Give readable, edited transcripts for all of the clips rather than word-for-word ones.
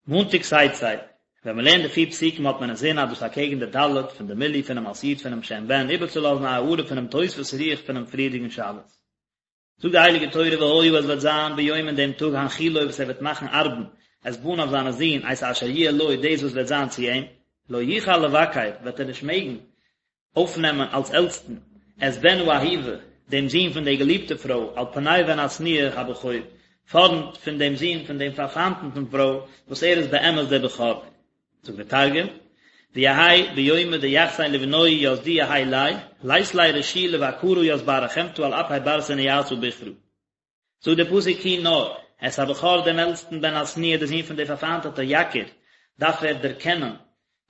מאנטאג תצא, ווען מען לערנט די פיר פסוקים האט מען אינזין אז דאס אקעגן די ד' פון די מילוי פונעם אות י' פונעם שם בן איבערצולאזן א הארה פונעם תוספות רוח פונעם פריערדיגן שבת. זאגט די הייליגע תורה והיה עס וועט זיין ביום אין דעם טאג הנחילו וואס ער וועט מאכן ארבן את בניו זיינע זין את אשר יהיה לו דאס וואס וועט זיין צו אים, לא יוכל לבכר וועט ער נישט מעגן אויפנעמען אלס עלטסטן את בן האהובה דעם זון פון דער געליבטער פרוי על פני בן השנואה הבכור פארנט פון דעם זון פון דעם פארפיינטעטן פרוי וואס ער איז באמת דער בכור. זאגט דער תרגום, ויהי ביומא דיחסין לבנוהי ית דיהי ליה, לית ליה רשו לבכרא ית בר רחמתא על אפי בר סניאתא בכרא. זאגט דער פסוק כי נאר, את הבכור דעם עלטסטן בן השנואה דער זון פון דער פארפיינטעטע יכיר, דארף ער דערקענען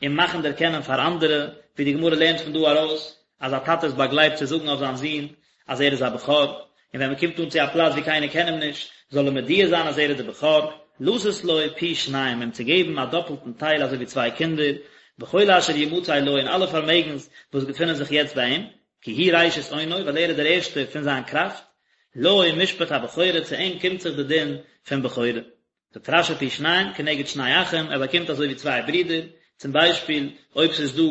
און מאכן דערקענען פאר אנדערע, ווי די גמרא לערנט פון דא ארויס אז א טאטע איז באגלייבט צו זאגן אויף זיין זון אז ער איז א בכור, און ווען מען קומט אן צו א פלאץ ווי קיינער קען אים נישט, זאל ער מודיע זיין אז ער איז דער בכור, לתת לו פי שניים, אים צו געבן א דאפלטן טייל אזוי ווי צוויי קינדער, בכל אשר ימצא לו, אין אלע פארמעגנס וואס געפינען זיך יעצט ביי אים, כי הוא ראשית אונו, ווייל ער איז דער ערשטער פון זיין קראפט, לו משפט הבכורה, צו אים קומט זיך די דין פון בכורה. זאגט רש"י פי שניים כנגד שני אחים, ער באקומט אזוי ווי צוויי ברידער, צום ביישפיל אויב ס'איז דא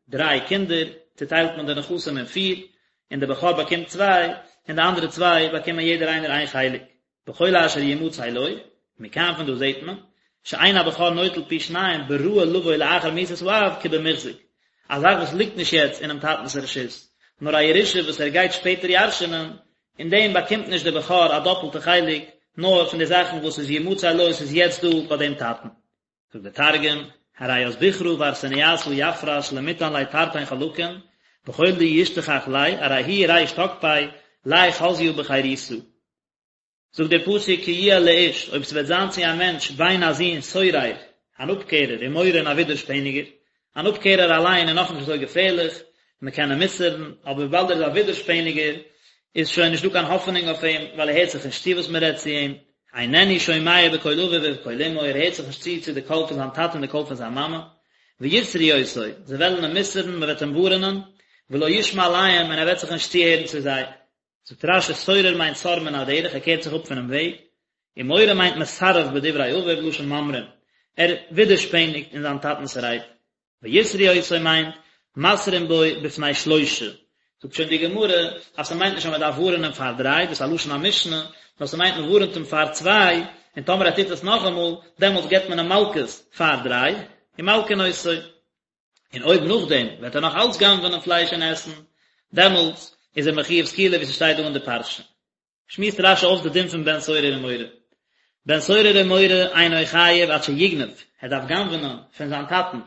דריי קינדער, צוטיילט מען די נכסים אין פיר, און דער בכור באקומט צוויי, און די אנדערע צוויי באקומען יעדער איינער איין חלק. בכל אשר ימצא לו, מכאן פון דא זעט מען, שאין הבכור נוטל פי שניים בראוי לבוא לאחר מיתת האב כבמוחזק, א זאך וואס ליגט נישט יעצט אינעם טאטנ'ס רשות, נאר א ירושה וואס ער גייט שפעטער ירש'נען, אין דעם באקומט נישט דער בכור א דאפלטע חלק, נאר פון די זאכן וואס איז ימצא לו, ס'איז יעצט דא ביי דעם טאטן. זאגט דער תרגום, ארי ית בכרא בר סניאתא יפרש למיתן ליה תרתין חלקין, בכל דישתכח ליה, ארי הוא ריש תקפיה, ליה חזיא בחירותא. זאגט דער פסוק כי יהיה לאיש, אויב ס'וועט זיין צו א מענטש בן א זון סורר, אן אפקערער, ומורה און א ווידערשפעניגער, אן אפקערער אליין איז נאכנישט אזוי געפערליך, מען קען אים מוסר'ן, אבער וויבאלד ער איז א ווידערשפעניגער, איז שוין נישטא קיין האפענונג אויף אים, ווייל ער הערט זיך נישט צו וואס מען רעדט צו אים, איננו שומע בקול אביו ובקול אמו, ער הערט זיך נישט צו צו די קול פון זיין טאטע און די קול פון זיין מאמע, ויסרו אותו, זיי וועלן אים מוסר'ן, מען וועט אים ווארענען, ולא ישמע אליהם, און ער וועט זיך נישט צוהערן צו זיי. זאגט רש"י סורר מיינט סר מן הדרך ער קערט זיך אפ פונעם וועג, און מורה מיינט מסרב בדברי אביו לשון ממרים, ער ווידערשפעניגט אין זיין טאטנ'ס רייד. ויסרו אותו מיינט מתרים בו בפני שלושה, זאגט שוין די גמרא אז ס'מיינט נישט אז מ'דארף ווארענען פאר דריי, דאס איז א לשון המשנה, נאר ס'מיינט מ'ווארענט אים פאר צוויי, און טאמער ער טוט עס נאכאמאל, דעמאלטס געבט מען אים מלקות פאר דריי, ומלקין אותו. און אויב נאכדעם וועט ער נאך אלץ גנב'נען פלייש און עסן, דעמאלטס איז ער מחויב סקילה ווי ס'שטייט דא אין די פרשה. שמועסט רש"י אויס די דין פון בן סורר ומורה. בן סורר ומורה אינו חייב עד שיגנוב, ער דארף גנב'נען פון זיין טאטן,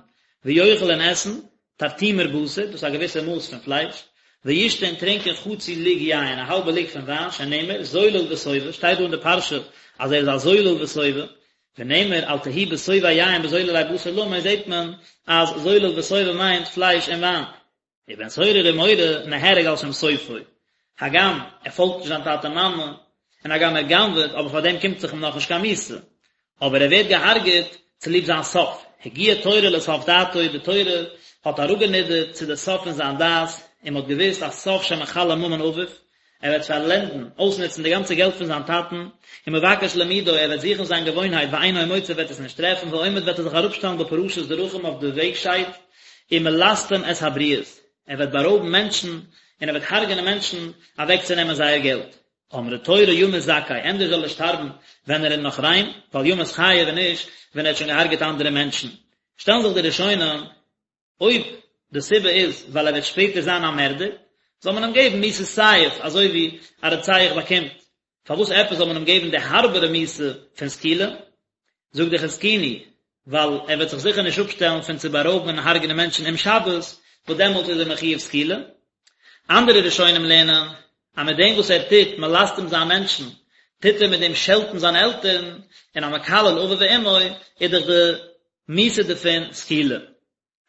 ויאכל און עסן, תרטימר בשר, דאס איז א געוויסע מאס פון פלייש, וישתה און טרינקען חצי לוג יין, א האלבע לוג פון וויין, שנאמר, זולל וסובא, שטייט דא אין די פרשה אז ער איז א זולל וסובא, ונאמר אל תהי בסובאי יין בזוללי בשר למו זעט מען אז זולל וסובא מיינט פלייש און וויין. ובן סורר ומורה נהרג על שם סופו, הגם ער פאלגט נישט זיין טאטע מאמע, און הגם ער גנב'עט, אבער פאר דעם קומט זיך אים נאכנישט קיין מיתה, אבער ער ווערט געהארגעט צוליב זיין סוף, הגיעה תורה לסוף דעתו, די תורה האט אראפגענידערט צו די סוף פון זיין דעת, און מען האט געוואוסט אז סוף שמכלה ממון אביו, ער וועט פארלענדן, אויסנוצן, די גאנצע געלט פון זיין טאטן, ומבקש לימודו, ער וועט זוכן זיין געוואוינהייט ואינו מוצא וועט עס נישט טרעפן, ועומד וועט ער זיך אראפשטעלן בפרשת דרכים אויף די וועגשייד, ומלסטם את הבריות, ער וועט בארויבן מענטשן, און ער וועט הרג'נען מענטשן אוועקצונעמען זייער געלט. אמרה תורה ימות זכאי, ענדערש זאל ער שטארבן ווען ער איז נאך ריין, ואל ימות חייב און נישט ווען ער האט שוין געהארגעט אנדערע מענטשן. שטעלן זיך די ראשונים אויב די סיבה איז ווייל ער וועט שפעטער זיין א מערדער, זאל מען אים געבן מיתת סייף אזוי ווי א רוצח באקומט, פארוואס עפעס זאל מען אים געבן די הארבערע מיתה פון סקילה? זאגט די חזקוני, ווייל ער וועט זיך זיכער נישט אפשטעלן פון צו בארויבן און הרג'נען מענטשן אום שבת, וואס דעמאלט איז ער מחויב סקילה. אנדערע ראשונים לערנען אז מיט דעם וואס ער טוט מלסטם זיין מענטשן, טוט ער מיט דעם שעלטן זיינע עלטערן, און המקלל אביו ואמו איז דאך די מיתה דערפון סקילה.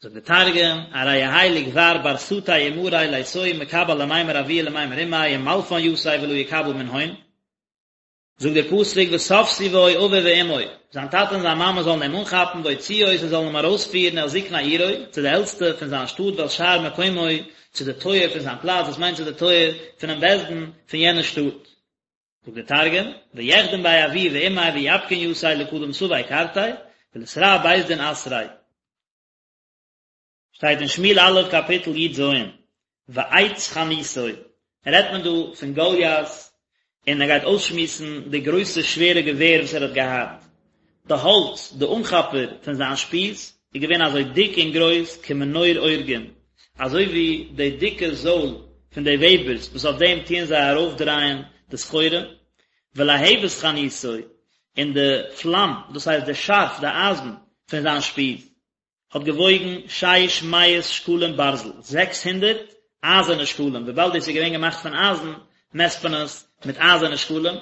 זאגט די תרגום, ארי יהי לגבר בר סטי ומרי ליתוהי מקבל למימר אבוהי ולמימר אמיה ומלפן יתיה ולא יקבל מנהון. זאגט דער פסוק ותפשו בו אביו ואמו, זיין טאטע און זיין מאמע זאלן אים אנכאפן והוציאו אותו זאלן אים ארויספירן אל זקני עירו, צו די עלטסטע פון זיין שטאט ואל שער מקומו, צו די טויער פון זיין פלאץ, דאס מיינט צו די טויער פונעם בית דין פון יענע שטאט. זאגט דער תרגום, ויחדון ביה אבוהי ואמיה ויפקון יתיה לקדם סבי קרתיה, ולתרע בית דין אתריה. שטייט אין שמואל א' קאפיטל י ז, ועץ חניתו, רעדט מען דא פון גוליית, און ער גייט אויסשמועסן די גרויסע שווערע געווער וואס ער האט געהאט, די האלץ, די אנכאפער פון זיין שפיז, איז געווען אזוי דיק און גרויס כמנור אורגים, אזוי ווי די דיקע זויל פון די וועבערס וואס אויף דעם טוען זיי ארויפדרייען די סחורה, ולהבת חניתו, און די פלאם, דאס הייסט די שארף, די אייזן, פון זיין שפיז. האט געוואויגן שש מאות שקלים ברזל, 600 אייזערנע שקלים, וויבאלד דאס איז געווען געמאכט פון אייזן, מעסט מען עס מיט אייזערנע שקלים,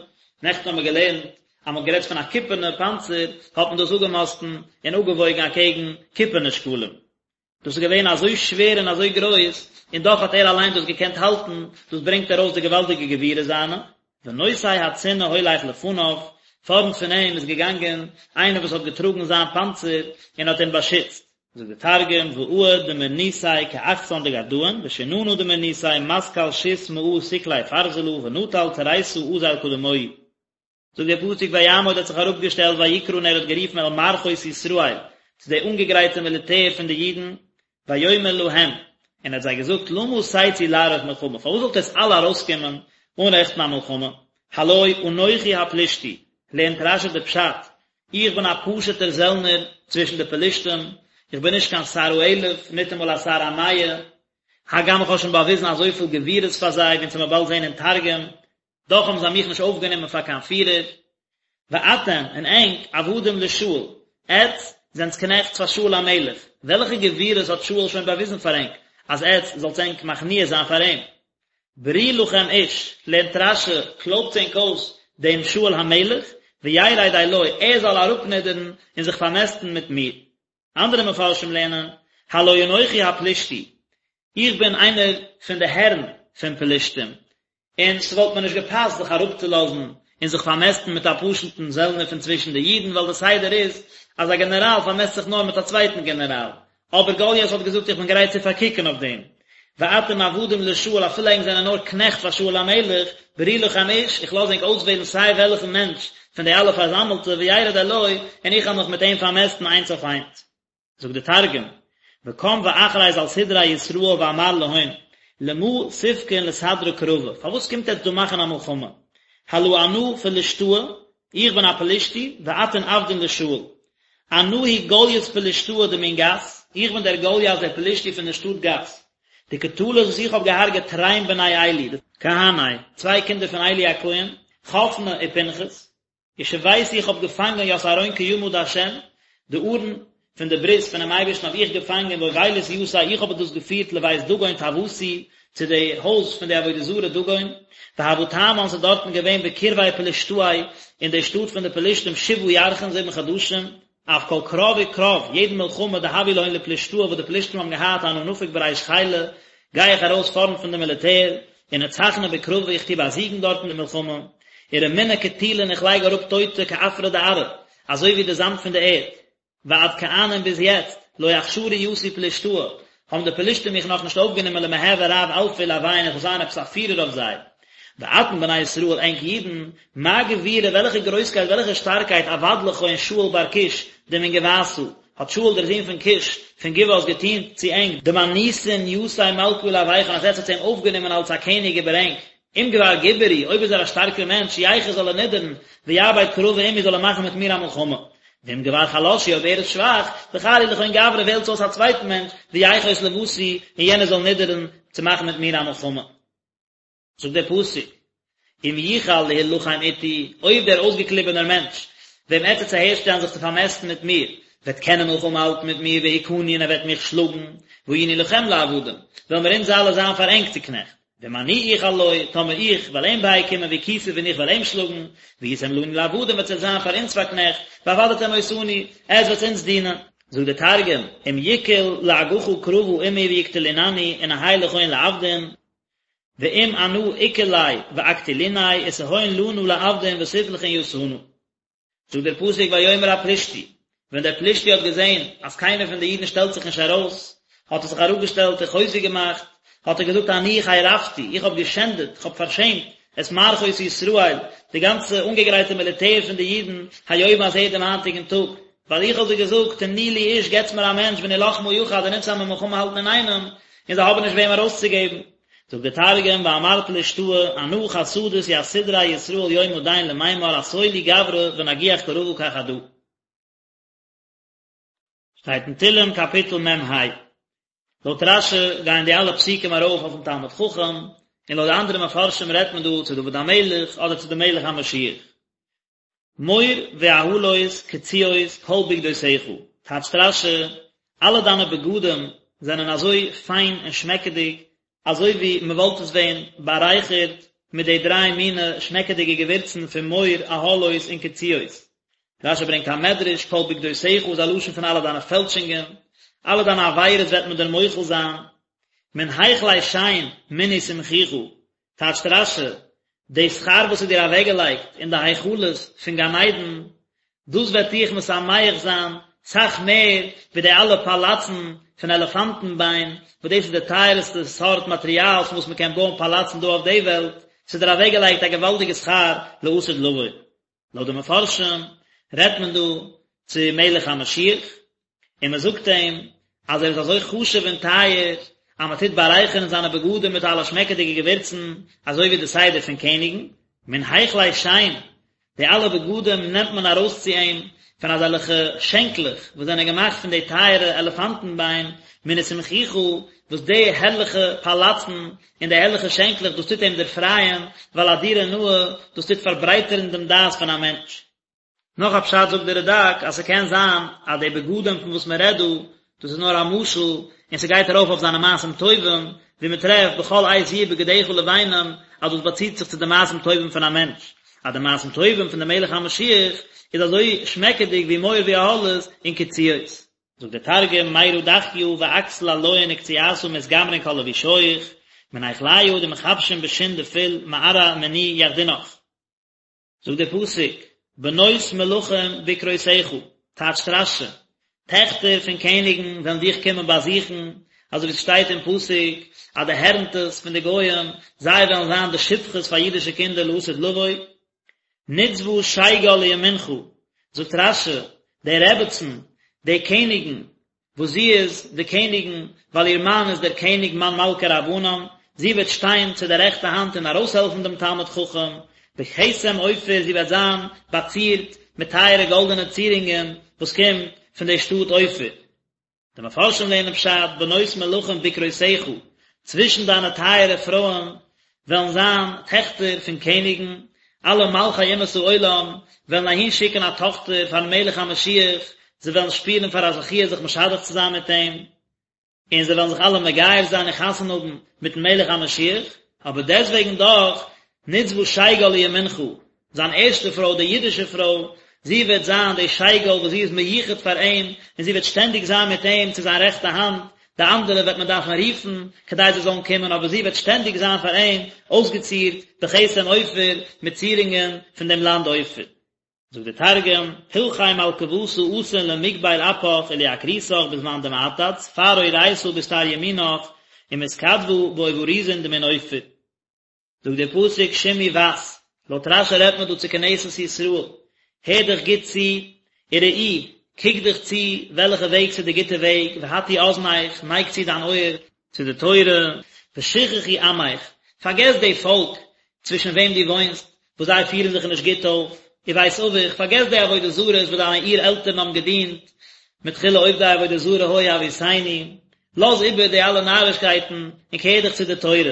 נעכטן האבן מיר געלערנט אז מען האט גערעדט פון א קופערנע פאנצער, האט מען דאס אפגעמאסטן און אפגעוואויגן אקעגן קופערנע שקלים. דאס איז געווען אזוי שווער און אזוי גרויס, און דאך האט ער אליין דאס געקענט האלטן, דאס ברענגט ארויס די געוואלדיגע גבורה זיינע. ונושא הצינה הולך לפניו, פארנט פון אים איז געגאנגען איינער וואס האט געטראגן זיין פאנצער און האט אים באשיצט. זאגט דער תרגום, ועוד דמורניתיה כאחסן דגרדאין, ושננא דמורניתיה מתקל שית מאה סקלי פרזלא ונטל תריתא אזיל קדמוהי. זאגט דער פסוק ויעמוד האט זיך אראפגעשטעלט ויקרא און ער האט גערופן אל מערכות ישראל, צו די אנגעגרייטע מיליטער פון די אידן, ויאמר להם, און ער האט זיי געזאגט, למה תצאו לערוך מלחמה, פארוואס זאלט עטס אלע ארויסקומען אנרעכטן א מלחמה, הלא אנכי הפלישתי, לערנט רשי די פשט, איך בין א פשוט'ער זעלנער צווישן די פלישתים, איך בין נישט קיין שר האלף, ניטאמאל א שר המאה, הגם איך האב שוין באוויזן אזויפיל גבורות פאר זיי, ווי אונז וועלן באלד זען אין תרגום, דאך האבן זיי מיך נישט אויפגענומען פאר קיין פירער. ואתם, און ענק, עבדים לשאול, עטץ זענטס קנעכטס פאר שאול המלך, וועלכע גבורות האט שאול שוין באוויזן פאר ענק, אז עטץ זאלטס ענק מכניע זיין פאר אים? ברו לכם איש, לערנט רשי, קלויבטס ענק אויס דעם שאול המלך, וירד אלי, ער זאל אראפנידערן און זיך פארמעסטן מיט מיר. אנדערע מפרשים לערנען, הלא אנכי הפלישתי, איך בין איינער פון די הערן פון פלישתים, און ס'וואלט מיר נישט געפאסט זיך אראפצולאזן און זיך פארמעסטן מיט א פשוט'ן זעלנער פון צווישן די אידן, ווייל די סדר איז אז א גענעראל פארמעסט זיך נאר מיט א צווייטן גענעראל. אבער גוליית האט געזאגט איך בין גרייט צו פארקוקן אויף דעם. ואתם עבדים לשאול אפילו ענק זענען נאר קנעכט פאר שאול המלך, ברו לכם איש, איך לאז ענק אויסוועלן סיי וועלכן מענטש פון די אלע פארזאמלטע, וירד אלי, און איך וועל מיך מיט אים פארמעסטן איינס אויף איינס. זאגט דער תרגום, וקם ואכריז על סדרי ישראל ואמר להון, למה תפקון לסדרא קרבא, פארוואס קומט עטץ דא מאכן א מלחמה? הלא אנא פלשתאה, איך בין א פלישתי, ואתון עבדין לשאול. אנא הוא גלית פלשתאה דמן גת, איך בין דער גלית דער פלישתי פון דער שטאט גת. דקטלית וואס איך האב געהארגעט תרין בני עלי, כהני, צוויי קינדער פון עלי הכהן, חפני ופנחס. ושביתי איך האב געפאנגען ית ארון קימא דהשם, די ארון פון די ברית פונעם אייבערשטן האב איך געפאנגען ואובילית יתיה איך האב דאס געפירט לבית דגון טעותי צו די הויז פון די עבודה זרה דגון, והוה תמן ס'איז דארטן געווען בקרבי פלשתאי אין די שטאט פון די פלשתים שבעה ירחין זיבן חדשים, אף כל קרב וקרב, יעדן מלחמה דהוה להון לפלשתאה וואס די פלשתים האבן געהאט אנא נפיק בריש חילא, גיי איך ארויס פארנט פון די מיליטער, ונצחנא בקרבא איך טו באזיגן דארט אין די מלחמה, ורמינא קטילין איך לייג אראפ טויטע כעפרא דארעא, אזוי ווי די זאמד פון די ערד. ועד כען און ביז יעצט, לא אכשרו יתי פלשתאה, האבן די פלשתים מיך נאכנישט אויפגענומען למהוי רב אלפא עלוהון איך זאל זיין עפעס א פירער אויף זיי. ואתון בני ישראל ענק אידן, מה גבורה וועלכע גרויסקייט וועלכע שטארקייט עבד לכון שאול בר קיש דמן גבעתא, האט שאול דער זון פון קיש פון גבעת געטון צו ענק, דמניתון יתיה מלכא עלויכון אז עטץ האטס אים אויפגענומען אלס א קעניג איבער ענק, אם גבר גבור הוא, אויב איז ער א שטארקער מענטש, יחות זאל ער נידערן, ויעביד קרבא עמי זאל ער מאכן מיט מיר א מלחמה. ואם גבר חלש הוא, אויב ער איז שוואך, בחרו לכון גברא וועלטס אויס א צווייטן מענטש, ויחות לוותי, און יענער זאל נידערן צו מאכן מיט מיר א מלחמה. זאגט דער פסוק, אם יוכל להלחם אתי, אויב דער אויסגעקליבענער מענטש, וועם עטץ וועטס אהערשטעלן זיך צו פארמעסטן מיט מיר, וועט קענען מלחמה האלטן מיט מיר, והכני און ער וועט מיך שלאגן, והיינו לכם לעבדים, וועלן מיר אונז אלע זיין פאר ענק צו קנעכט. ואם אני אוכל לו, טאמער איך וועל אים בייקומען והכיתיו און איך וועל אים שלאגן, והייתם לנו לעבדים וועט עטס זיין פאר אונז פאר קנעכט, ועבדתם אותנו, עטס וועטס אונז דינען. זאגט דער תרגום, אם יקול לאגחא קרבא עמי ויקטלינני ונהי לכון לעבדין, ואם אנא אקול ליה ואקטליניה ותהון לנא לעבדין ותפלחון יתנא. זאגט דער פסוק ויאמר הפלישתי, ווען דער פלישתי האט געזען אז קיינער פון די אידן שטעלט זיך נישט ארויס, האט ער זיך אראפגעשטעלט און חוזק געמאכט, האט ער געזאגט אני חרפתי, איך האב געשענדעט, איך האב פארשעמט, את מערכות ישראל, די גאנצע אנגעגרייטע מיליטער פון די אידן, היום הזה דעם היינטיגן טאג. ווייל איך האב זיי געזאגט, תנו לי איש, געטס מיר א מענטש, ונלחמה יחד, און אונז וועלן מיר מלחמה האלטן אינאיינעם, און זיי האבן נישט וועם ארויסצוגעבן. זאגט דער תרגום, ואמרת לאשתהי, אנא חסדית ית סדרי ישראל יומא דין למימר אתו לי גברא ונגיח קרבא כחדא. שטייט אין תהלים קאפיטל מ ה. לויט רש י גייען די אלע פסוקים ארויף אויפן תלמיד חכם, און לויט די אנדערע מפרשים רעדט מען דא צו דוד המלך אדער צו די מלך המשיח. מור ואהלות קציעות כל בגדותיך, טייטשט רש י, אלע דיינע בגדים זענען אזוי פיין און שמעקעדיג, אזוי ווי מען וואלט עס ווען בארייכערט מיט די דריי מיני שמעקעדיגע געווירצן פון מור, אהלות און קציעות. רש י ברענגט א מדרש, כל בגדותיך איז א לשון פון אלע דיינע פעלשונגען, אלע דיינע עבירות וועט מען דיר מוחל זיין. מן היכלי שן מני שמחוך, טייטשט רש י, די שכר וואס איז דיר אוועקגעלייגט אין די היכלות פון גן עדן, דאס וועט דיך משמח זיין סאך מער ווי די אלע פאלאצן פון עלעפאנטן ביין, וואס דאס איז די טייערסטע סארט מאטריאל פון וואס מען קען בויען פאלאצן דא אויף די וועלט, ס'איז דיר אוועקגעלייגט א געוואלדיגע שכר לעתיד לבוא. לויט די מפרשים רעדט מען דא צו מלך המשיח, און מען זאגט אים אז ער איז אזוי חשוב און טייער אז מען טוט בארייכערן זיינע בגדים מיט אלע שמעקעדיגע געווירצן אזוי ווי די סדר פון קעניגן, מן היכלי שן, די אלע בגדים נעמט מען ארויס צו אים פון אזעלכע שענקלעך וואס זענען געמאכט פון די טייערע עלעפאנטן ביין, מני שמחוך, וואס די הערליכע פאלאצן און די הערליכע שענקלעך דאס טוט אים דערפרייען, ווייל א דירה נאה, דאס טוט פארברייטערן דעם דעת פון א מענטש. נאך א פשט זאגט דער רדק אז ס'קען זיין אז די בגדים פון וואס מען רעדט דא, דאס איז נאר א משל און ס'גייט ארויף אויף זיינע מעשים טובים, ווי מען טרעפט בכל עת יהיו בגדיך לבנים אז דאס באציט זיך צו די מעשים טובים פון א מענטש, אז די מעשים טובים פון די מלך המשיח איז אזוי שמעקעדיג ווי מור ואהלות און קציעות. זאגט דער תרגום, מירא דכיא ואכסיל עליהון וקציעתא מתגמרין כל לבישייך, מן היכליא דמכבשין בשין דפיל מארעא מני יחדינך. זאגט דער פסוק, בנות מלכים בקרותיך, טייטשט רש י, טעכטער פון קעניגן וועלן דיך קומען באזוכן, אזוי ווי עס שטייט אין פסוק, אז די הערנטעס פון די גוים, זיי וועלן זיין די שפחות פאר אידישע קינדער לעתיד לבוא. נצבה שגל לימינך, זאגט רש י, די רעבעצן, די קעניגן, וואס זי איז די קעניגן, ווייל איר מאן איז דער קעניג מאן מלכי רבנן, זי וועט שטיין צו דער רעכטע האנט און ארויסהעלפן דעם תלמיד חכם, בכתם אופיר, זי וועט זיין באצירט מיט טייערע גאלדענע צירונגען וואס קומט פון די שטאט אופיר. די מפרשים לערנען פשט, בנות מלכים בקרותיך, צווישן דיינע טייערע פרויען וועלן זיין טעכטער פון קעניגן, אלע מלכי אומות העולם וועלן אהין שיקן א טאכטער פארן מלך המשיח, זיי וועלן שפירן פאר א זכיה זיך משדך צו זיין מיט אים, און זיי וועלן זיך אלע מגייר זיין און חתונה האבן מיטן מלך המשיח, אבער דעסטוועגן דאך, נצבה שגל לימינך, זיין ערשטע פרוי, די אידישע פרוי, זי וועט זיין די שגל וואס זי איז מיוחד פאר אים, און זי וועט שטענדיג זיין מיט אים צו זיין רעכטע האנט, די אנדערע וועט מען דארפן רופן כדי זיי זאלן קומען, אבער זי וועט שטענדיג זיין פאר אים אויסגעצירט בכתם אופיר, מיט צירונגען פון דעם לאנד אופיר. זאגט דער תרגום, פלחי מלכוותא אתין למקבל אפך וליקרותך בזמן דמעתד ספר אורייתא בסטר ימינך ומתכתבא באובריזין דמן אופיר. זאגט דער פסוק שמעי בת, לויט רשי רעדט מען דא צו כנסת ישראל, הער דיך גוט צו, וראי, קוק דיך צו וועלכע וועג ס'איז די גוטע וועג, והטי אזנך, נייג צו דיין אויער, צו די תורה, ושכחי עמך, פארגעס די פאלק צווישן וועם דו וואוינסט, וואס זיי פירן זיך נישט גוט אויף, ובית אביך, פארגעס די עבודה זרות וואס דיינע אור עלטערן האבן געדינט, מתחילה עובדי עבודה זרה היו אבותינו, לאז איבער די אלע נארישקייטן און קער דיך צו די תורה.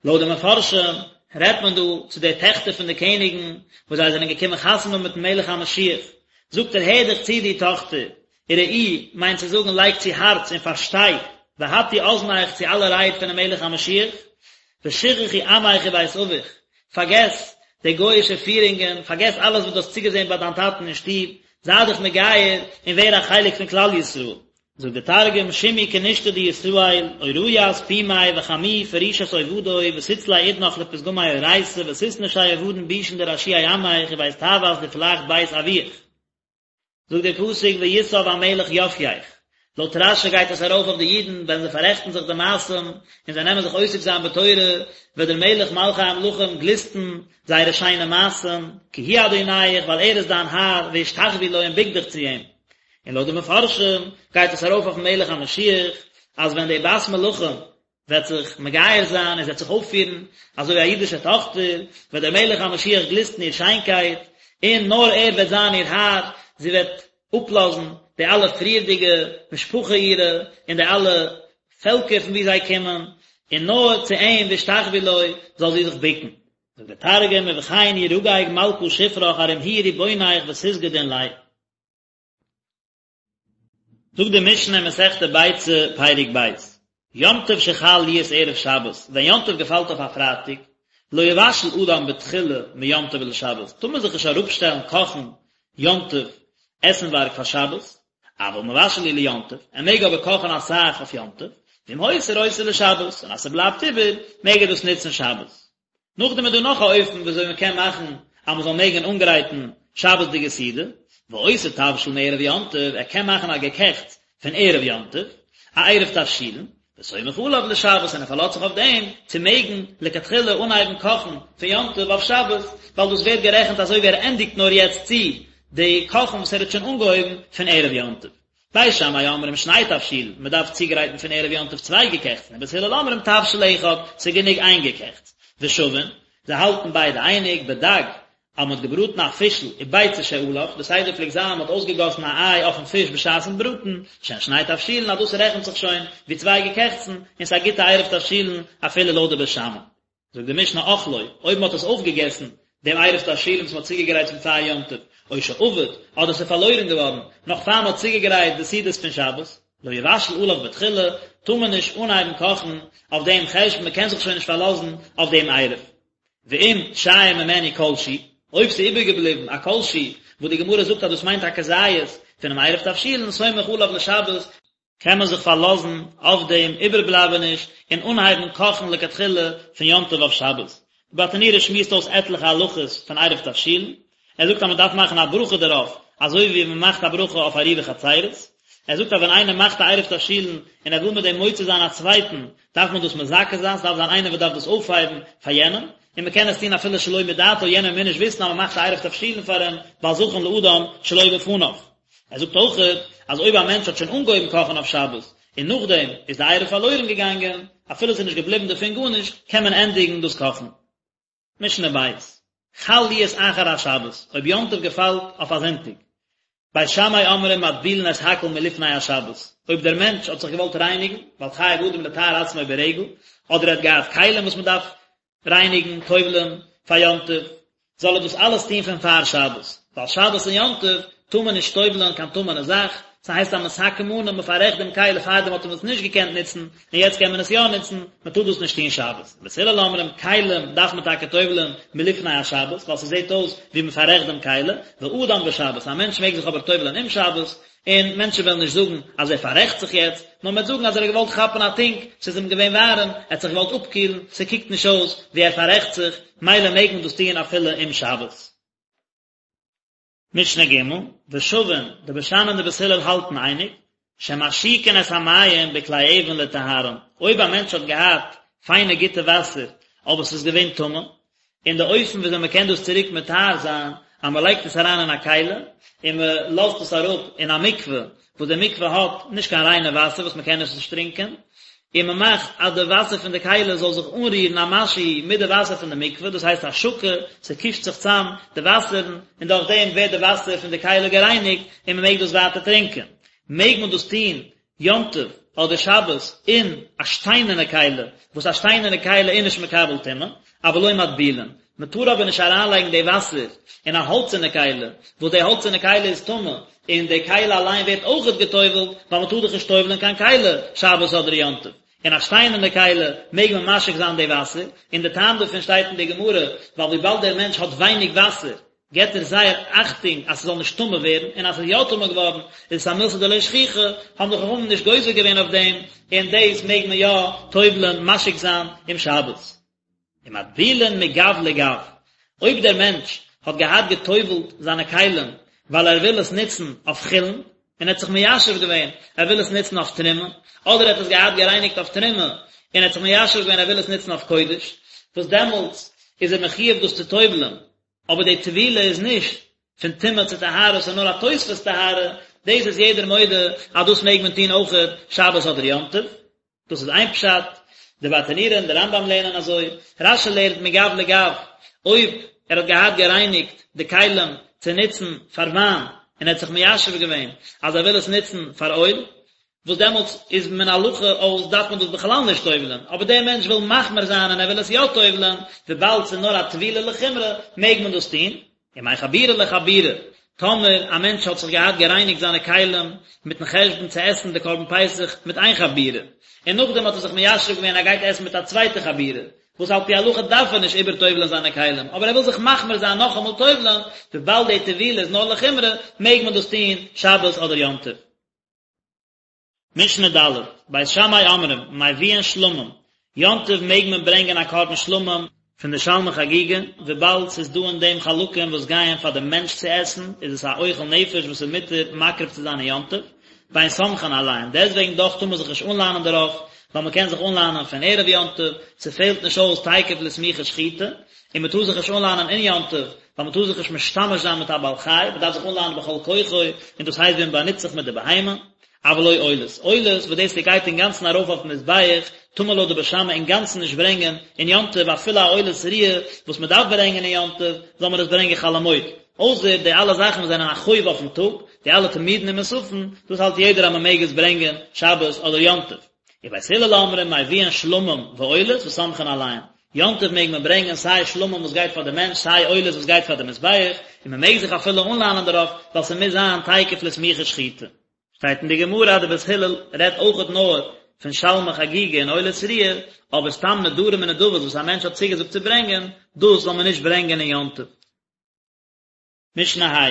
לויט די מפרשים רעדט מען דא צו די טעכטער פון די קעניגן וואס זיי זענען געקומען חתונה האבן מיטן מלך המשיח, זאגט ער הער דיך צו דו טאכטער, וראי מיינט צו זאגן לייג צו הארץ און פארשטיי, והטי אזנך צו אלע רייד פונעם מלך המשיח, ושכחי עמך ובית אביך, פארגעס די גוי'אישע פירונגען, פארגעס אלעס וואס דו האסט צוגעזען ביי דיין טאטן אין שטוב, זיי דיך מגייר און ווער א חלק פון כלל ישראל. זאגט דער תרגום, שמעי כנישתא דישראל, אוריית פומי וחמי פרישת עובדוי ותצלי אודנך לפתגמי אורייתא ותתנשי אובדן בישין דרשיעי עמך ובית טעות דפלך בית אבוך. זאגט דער פסוק ויסב המלך יפיך, לויט רשי גייט עס ארויף אויף די אידן ווען זיי פאררעכטן זיך די מעשים און זיי נעמען זיך עוסק זיין בתורה וועט דער מלך מלכי המלכים גליסטן זייערע שיינע מעשים, כי הוא אדוניך ווייל ער איז דיין האר והשתחוי לו און בוק דיך צו אים. און לויט די מפרשים גייט עס ארויף אויפן מלך המשיח, אז ווען די בת מלכים וועט זיך מגייר זיין און זי וועט זיך אויפפירן אזוי ווי א אידישע טאכטער, וועט דער מלך המשיח גליסטן איר שיינקייט, און נאר ער וועט זיין איר האר, זי וועט אפלאזן די אלע פריערדיגע משפחה אירע און די אלע פעלקער פון וואו זיי קומען, און נאר צו אים והשתחוו לו זאל זי זיך בוקן. זאגט דער תרגום ובכן ירגג מלכא שפרך ארום הוא ריבונך ותסגדין ליה. זאגט די משנה אין מסכת ביצה פרק ב', יום טוב שחל להיות ערב שבת, ווען יום טוב געפאלט אויף א פרייטאג, לא יבשל אדם בתחילה מיום טוב לשבת, טאר מען זיך נישט אראפשטעלן קאכן יום טוב עסנווארג פאר שבת, אבל מבשל הוא ליום טוב, ער מעג אבער קאכן אסאך אויף יום טוב, ואם הותיר עושה לשבת, און אז ס'בלייבט איבער, מעג ער דאס נוצן שבת. נאכדעם איז דא נאך א אופן וויאזוי מען קען מאכן אז מען זאל מעגן אנגרייטן שבת'דיגע סעודה, ועושה תבשיל מערב יום טוב, ער קען מאכן א געקעכטס פון ערב יום טוב, א עירוב תבשילין, וסומך עליו לשבת און ער פארלאזט זיך אויף דעם צו מעגן לכתחילה אנהייבן קאכן פון יום טוב אויף שבת, ווייל דאס ווערט גערעכנט אזוי ווי ער ענדיגט נאר יעצט צו די קאכן וואס ער האט שוין אנגעהויבן פון ערב יום טוב. בית שמאי אומרים שני תבשילין, מען דארף צוגרייטן פון ערב יום טוב צוויי געקעכטסן, ובית הלל אומרים תבשיל אחד, ס'איז גענוג איין געקעכטס. ושווין, זיי האלטן ביידע אייניג, בדג, אז מען האט געבראטן א פישל וביצה שעליו, די סדר פלעגט זיין מען האט אויסגעגאסן א איי אויפן פיש בשעת'ן בראטן, שהן שני תבשילין אז דאס רעכנט זיך שוין ווי צוויי געקעכטסן, און ס'איז א גוטע עירוב תבשילין אפילו לויט די בית שמאי. זאגט די משנה אכלו, אויב מען האט עס אויפגעגעסן, דעם עירוב תבשילין וואס מען האט צוגעגרייט פון פאר יום טוב, או שאבד, אדער ס'איז פארלוירן געווארן, נאך פאר מען האט צוגעגרייט די סעודות פון שבת, לא יבשל עליו בתחילה, טאר מען נישט אנהייבן קאכן אויף דעם חשבון, מען קען זיך שוין נישט פארלאזן אויף דעם עירוב. ואם שייר ממנו כל שהוא, אויב ס'איז איבערגעבליבן א כל שהוא, וואס די גמרא זאגט אז דאס מיינט א כזית פונעם עירוב תבשילין, סומך עליו לשבת, קען מען זיך פארלאזן אויף דעם איבערבלייבעניש און אנהייבן קאכן לכתחילה פון יום טוב אויף שבת. די ברטנורא שמועסט אויס עטליכע הלכות פון עירוב תבשילין, ער זאגט אז מען דארף מאכן א ברכה דערויף אזוי ווי מען מאכט א ברכה אויף עירובי חצירות, ער זאגט אז ווען איינער מאכט א עירוב תבשילין און ער וויל מיט דעם מוציא זיין א צווייטן דארף מען דאס מזכה זיין, ס'דארף זיין איינער וואס דארף דאס אויפהייבן פאר יענעם, און מען קען עס טון אפילו שלא מדעתו, יענער מוז נישט וויסן אז מען מאכט א עירוב תבשילין פאר אים, ווייל זכין לאדם שלא בפניו. ער זאגט אויכעט אז אויב א מענטש האט שוין אנגעהויבן קאכן אויף שבת און נאכדעם איז די עירוב פארלוירן געגאנגען, אפילו עס איז נישט געבליבן דערפון גארנישט, קען מען ענדיגן דאס קאכן. משנה ב', חל להיות אחר השבת, אויב יום טוב געפאלט אויף א זונטאג. בית שמאי אומרים מטבילין את הכל מלפני השבת, אויב דער מענטש האט זיך געוואלט רייניגן, ווייל חייב אדם לטהר עצמו ברגל, אדער ער האט געהאט כלים וואס מען דארף רייניגן, טובל'ען, פאר יום טוב, זאל ער דאס אלעס טון פון פאר שבת, ווייל שבת און יום טוב טאר מען נישט טובל'ען קיין טמא'נע זאך, ס'הייסט א מתקן מנא, מ'פאררעכט דעם כלי, פארדעם האט מען עס נישט געקענט נוצן, און יעצט קען מען עס יא נוצן, מען טאר דאס נישט טון שבת. בית הלל אומרים, כלים דארף מען טאקע טובל'ען מלפני השבת, ווייל ס'זעט אויס ווי מ'פאררעכט דעם כלי, ואדם בשבת, א מענטש מעג זיך אבער טובל'ען אום שבת, און מענטשן וועלן נישט זאגן אז ער פאררעכט זיך יעצט, נאר מ'וועט זאגן אז ער האט געוואלט כאפן א טונק, ס'איז אים געווען ווארעם, ער האט זיך געוואלט אפקילן, ס'קוקט נישט אויס ווי ער פאררעכט זיך, מילא מעג מען דאס טון אפילו אום שבת. משנה ג', ושווין, די בית שמאי און די בית הלל האלטן אייניג, שמשיקין את המים בכלי אבן לטהרן, אויב א מענטש האט געהאט פיינע גוטע וואסער אבער ס'איז געווען טמא, און די אופן וויאזוי מען קען דאס צוריק מטהר זיין, אז מען לייגט עס אריין אין א כלי, און מען לאזט עס אראפ אין א מקווה, וואס די מקווה האט נישט קיין ריינע וואסער וואס מען קען עס נישט טרינקען, און מען מאכט אז די וואסער פון די כלי זאל זיך אנרירן א משהו מיט די וואסער פון די מקווה, דאס הייסט השקה, ס'קושט זיך צאם די וואסערן, און דורך דעם ווערט די וואסער פון די כלי גערייניגט, און מען מעג דאס ווייטער טרינקען. מעג מען דאס טון יום טוב אדער שבת אין א שטיינערנע כלי, וואס א שטיינערנע כלי איז נישט מקבל טומאה, אבל לא מטבילין, מען טאר אבער נישט אריינלייגן די וואסער אין א האלצערנע כלי, וואס די האלצערנע כלי איז טמא, און די כלי אליין ווערט אויכעט גע'טובל'ט, ווייל מען טאר דאך נישט טובל'ען קיין כלי שבת אדער יום טוב. אין א שטיינערנע כלי מעג מען משיק זיין די וואסער, און די טעם דערפון שטייט אין די גמרא, ווייל וויבאלד דער מענטש האט ווייניג וואסער, געבט ער זייער אכטונג אז ס'זאל נישט טמא ווערן, און אז ס'איז יא טמא געווארן איז עס א מילתא דלא שכיחא, האבן די חכמים נישט גוזר געווען אויף דעם, און דאס מעג מען יא טובל'ען, משיק זיין, אום שבת. ומטבילין מגו לגו, אויב דער מענטש האט געהאט געטובל'ט זיינע כלים ווייל ער וויל עס נוצן אויף חולין, און ער האט זיך מיישב געווען ער וויל עס נוצן אויף תרומה, אדער ער האט עס געהאט גערייניגט אויף תרומה, און ער האט זיך מיישב געווען ער וויל עס נוצן אויף קודש, וואס דעמאלטס איז ער מחויב דאס צו טובל'ען, אבער די טבילה איז נישט פון טומאה צו טהרה, ס'איז נאר א תוספות טהרה, דאס איז יעדער מודה אז דאס מעג מען טון אויכעט שבת אדער יום טוב. דאס איז איין פשט, די ברטנורא און די רמב"ם לערנען אזוי, רש"י לערנט מגב לגב, אויב ער האט געהאט גערייניגט די כלים צו נוצן פאר וויין און ער האט זיך מיישב געווען אז ער וויל עס נוצן פאר אויל, וואס דעמאלטס איז מן הלכה אויס דארף מען דאס בכלל נישט טובל'ען, אבער דער מענטש וויל מחמיר זיין און ער וויל עס יא טובל'ען, וויבאלד ס'איז נאר א טבילה לחומרא מעג מען דאס טון. ומחבורה לחבורה, טאמער א מענטש האט זיך געהאט גערייניגט זיינע כלים מיטן חשבון צו עסן די קרבן פסח מיט איין חבורה, און נאכדעם האט ער זיך מיישב געווען ער גייט עסן מיט א צווייטע חבורה, וואס על פי הלכה דארף ער נישט איבערטובל'ען זיינע כלים, אבער ער וויל זיך מחמיר זיין נאכאמאל טובל'ען, וויבאלד די טבילה איז נאר לחומרא, מעג מען דאס טון שבת אדער יום טוב. משנה ד', בית שמאי אומרים, מביאין שלמים, יום טוב מעג מען ברענגען א קרבן שלמים פון די שלמי חגיגה, וויבאלד ס'איז דא אין דעם חלקים וואס גייען פאר די מענטש צו עסן, איז עס א אוכל נפש וואס איז מותר מקריב צו זיין אין יום טוב, ואין סומכין עליהן, דעסטוועגן דאך טאר מען זיך נישט אנלאנען דערויף, ווייל מען קען זיך אנלאנען פון ערב יום טוב, ס'פעלט נישט אויס תיכף לסמיכה שחיטה, און מען טאר זיך נישט אנלאנען אין יום טוב, ווייל מען טאר זיך נישט משתמש זיין מיט א בעל חי, מען דארף זיך אנלאנען בכל כוחו, און דאס הייסט ווי מען באנוצט זיך מיט די בהמה. אבל לא עולות, עולות וואס דאס גייט אינגאנצן ארויף אויפן מזבח, טאר מען לויט די בית שמאי אינגאנצן נישט ברענגען אין יום טוב, אפילו א עולת ראיה וואס מען דארף ברענגען אין יום טוב, זאל מען עס ברענגען חול המועד. אויסער די אלע זאכן וואס זענען א חוב אויפן טאג, די אלע תמידין און מוספין, דאס האלט יעדער אז מען מעג עס ברענגען שבת אדער יום טוב. ובית הלל אומרים מביאין שלמים ועולות וסומכין עליהן, יום טוב מעג מען ברענגען סיי שלמים וואס גייט פאר די מענטש סיי עולות וואס גייט פאר די מזבח, און מען מעג זיך אפילו אנלאנען דערויף ווייל ס'מוז זיין תיכף לסמיכה שחיטה. שטייט אין די גמרא אז די בית הלל רעדט אויכעט נאר פון שלמי חגיגה און עולת ראיה, אבער סתם נדרים און נדבות וואס א מענטש האט צוגעזאגט צו ברענגען, דאס זאל מען נישט ברענגען אין יום טוב. משנה ה',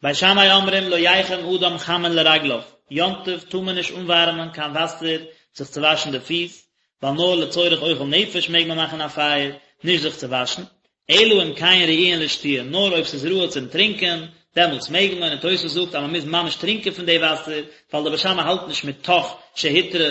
בית שמאי אומרים לא יחם אדם חמין לרגליו, יום טוב טאר מען נישט אנווארעמען קיין וואסער זיך צו וואשן די פיס, ווייל נאר לצורך אוכל נפש מעג מען מאכן א פייער, נישט זיך צו וואשן, אלא אם כן ראויין לשתיה, נאר אויב ס'איז ראוי צום טרינקען, דעמאלטס מעג מען, און תוס' זאגט אז מ'מוז ממש טרינקען פון די וואסער, ווייל די בית שמאי האלט נישט מתוך שהותרה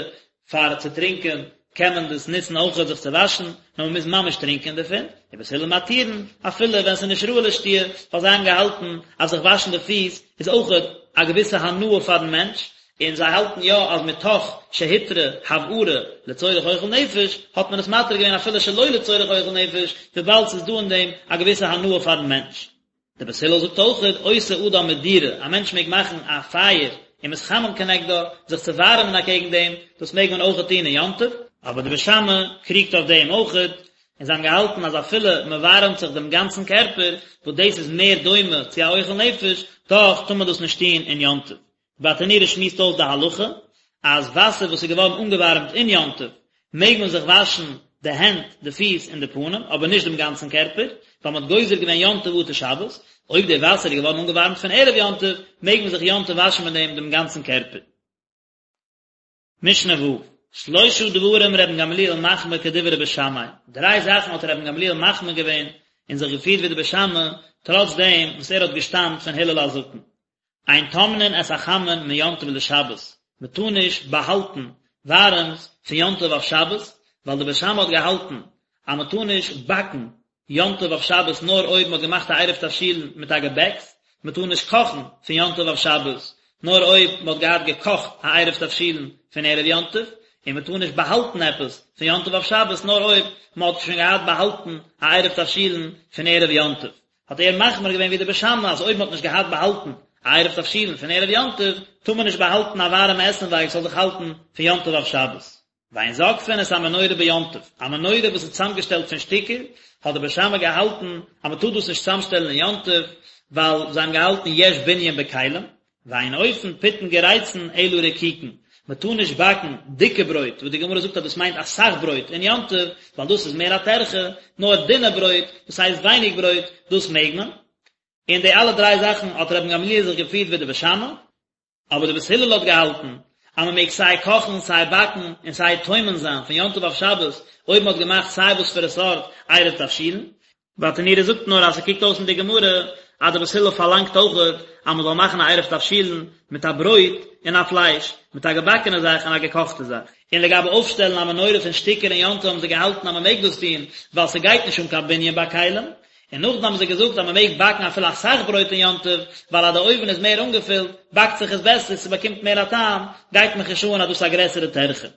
פאר צו טרינקען קען מען דאס נוצן אויכעט זיך צו וואשן, נאר מ'מוז ממש טרינקען דערפון, ובית הלל מתירין, אפילו ווען ס'איז נישט ראוי לשתיה, ווייל זיי האבן געהאלטן אז זיך וואשן די פיס איז אויכעט א געוויסע הנאה פארן מענטש, און זיי האלטן יא אז מתוך שהותרה הבערה לצורך אוכל נפש, האט מען עס מתיר געווען אפילו שלא לצורך אוכל נפש, וויבאלד ס'איז דא אין דעם א געוויסע הנאה פארן מענטש. דער בית הלל זאגט אויכעט, עושה אדם מדורה, א מענטש מעג מאכן א פייער ומתחמם כנגדה, זיך צו ווארעמען אקעגן דעם, דאס מעג מען אויכעט טון אין יום טוב, אבער די בית שמאי קריגט אויף דעם אויכעט, און זיי האבן געהאלטן אז אפילו מען ווארעמט זיך דעם גאנצן קערפער, וואס דאס איז מער דומה צו א אוכל נפש, דאך טאר מען דאס נישט טון אין יום טוב. ברטנורא שמועסט אויס די הלכה אז וואסער וואס איז געווארן אנגעווארעמט אין יום טוב מעג מען זיך וואשן די הענט, די פיס און די פנים, אבער נישט דעם גאנצן קערפער, ווייל מען האט גוזר געווען יום טוב אטו שבת, אויב די וואסער איז געווארן אנגעווארעמט פון ערב יום טוב, מעג מען זיך יום טוב וואשן מיט דעם דעם גאנצן קערפער. משנה ו', שלשה דברים רבן גמליאל מחמיר כדברי בית שמאי, דריי זאכן האט רבן גמליאל מחמיר געווען און זיך געפירט ווי די בית שמאי, טראץ דעם וואס ער האט געשטאמט פון הלל הזקן. אין טומנין את החמין מיום טוב לשבת, מען טאר נישט באהאלטן ווארעמס פון יום טוב אויף שבת, ווייל די בית שמאי האט געהאלטן אז מען טאר נישט באקן יום טוב אויף שבת נאר אויב מען האט געמאכט א עירוב תבשילין מיט א געבעקס, מען טאר נישט קאכן פון יום טוב אויף שבת נאר אויב מען האט געהאט געקאכט א עירוב תבשילין פון ערב יום טוב, און מען טאר נישט באהאלטן עפעס פון יום טוב אויף שבת נאר אויב מען האט שוין געהאט באהאלטן א עירוב תבשילין פון ערב יום טוב. האט ער מחמיר געווען ווי די בית שמאי אז אויב מען האט נישט געהאט באהאלטן א עירוב תבשילין פון ערב יום טוב, טאר מען נישט באהאלטן א ווארעמע עסנווארג ס'זאל זיך האלטן פון יום טוב אויף שבת. ואין זוקפין את המנורה ביום טוב, א מנורה וואס איז צוזאמגעשטעלט פון שטיקער, האט די בית שמאי געהאלטן אז מען טאר דאס נישט צוזאמשטעלן אין יום טוב, ווייל זיי האבן געהאלטן יש בנין בכלים, ואין אופין פיתין גריצין אלא רקיקין, מען טאר נישט באקן דיקע ברויט, וואס די גמרא זאגט אז דאס מיינט אסאך ברויט אין יום טוב, ווייל דאס איז מער א טרחה, נאר דינע ברויט, דאס הייסט ווייניג ברויט, דאס מעג מען. און די אלע דריי זאכן האט רבן גמליאל זיך געפירט ווי די בית שמאי. אבער די בית הלל האט געהאלטן אז מען מעג סיי קאכן סיי באקן און סיי טומן זיין פון יום טוב אויף שבת אויב מען האט געמאכט סיי וואס פאר א סארט עירוב תבשילין. ברטנורא זאגט נאר אז ס'קוקט אויס אין די גמרא אז די בית הלל פארלאנגט אויכעט אז מען זאל מאכן א עירוב תבשילין מיט א ברויט און א פלייש, מיט א געבאקענע זאך און א געקאכטע זאך. און לגבי אויפשטעלן א מנורה פון שטיקער אין יום טוב האבן זיי געהאלטן אז מען מעג דאס טון ווייל ס'גייט נישט אן קיין בנין ביי כלים. און נאכדעם האבן זיי געזאגט אז מען מעג באקן אפילו אסאך ברויט אין יום טוב, ווייל אז די אויוון איז מער אנגעפילט, באקט זיך עס בעסער, ס'באקומט מער א טעם, גייט מיך נישט אן אז דאס איז א גרעסערע טרחה.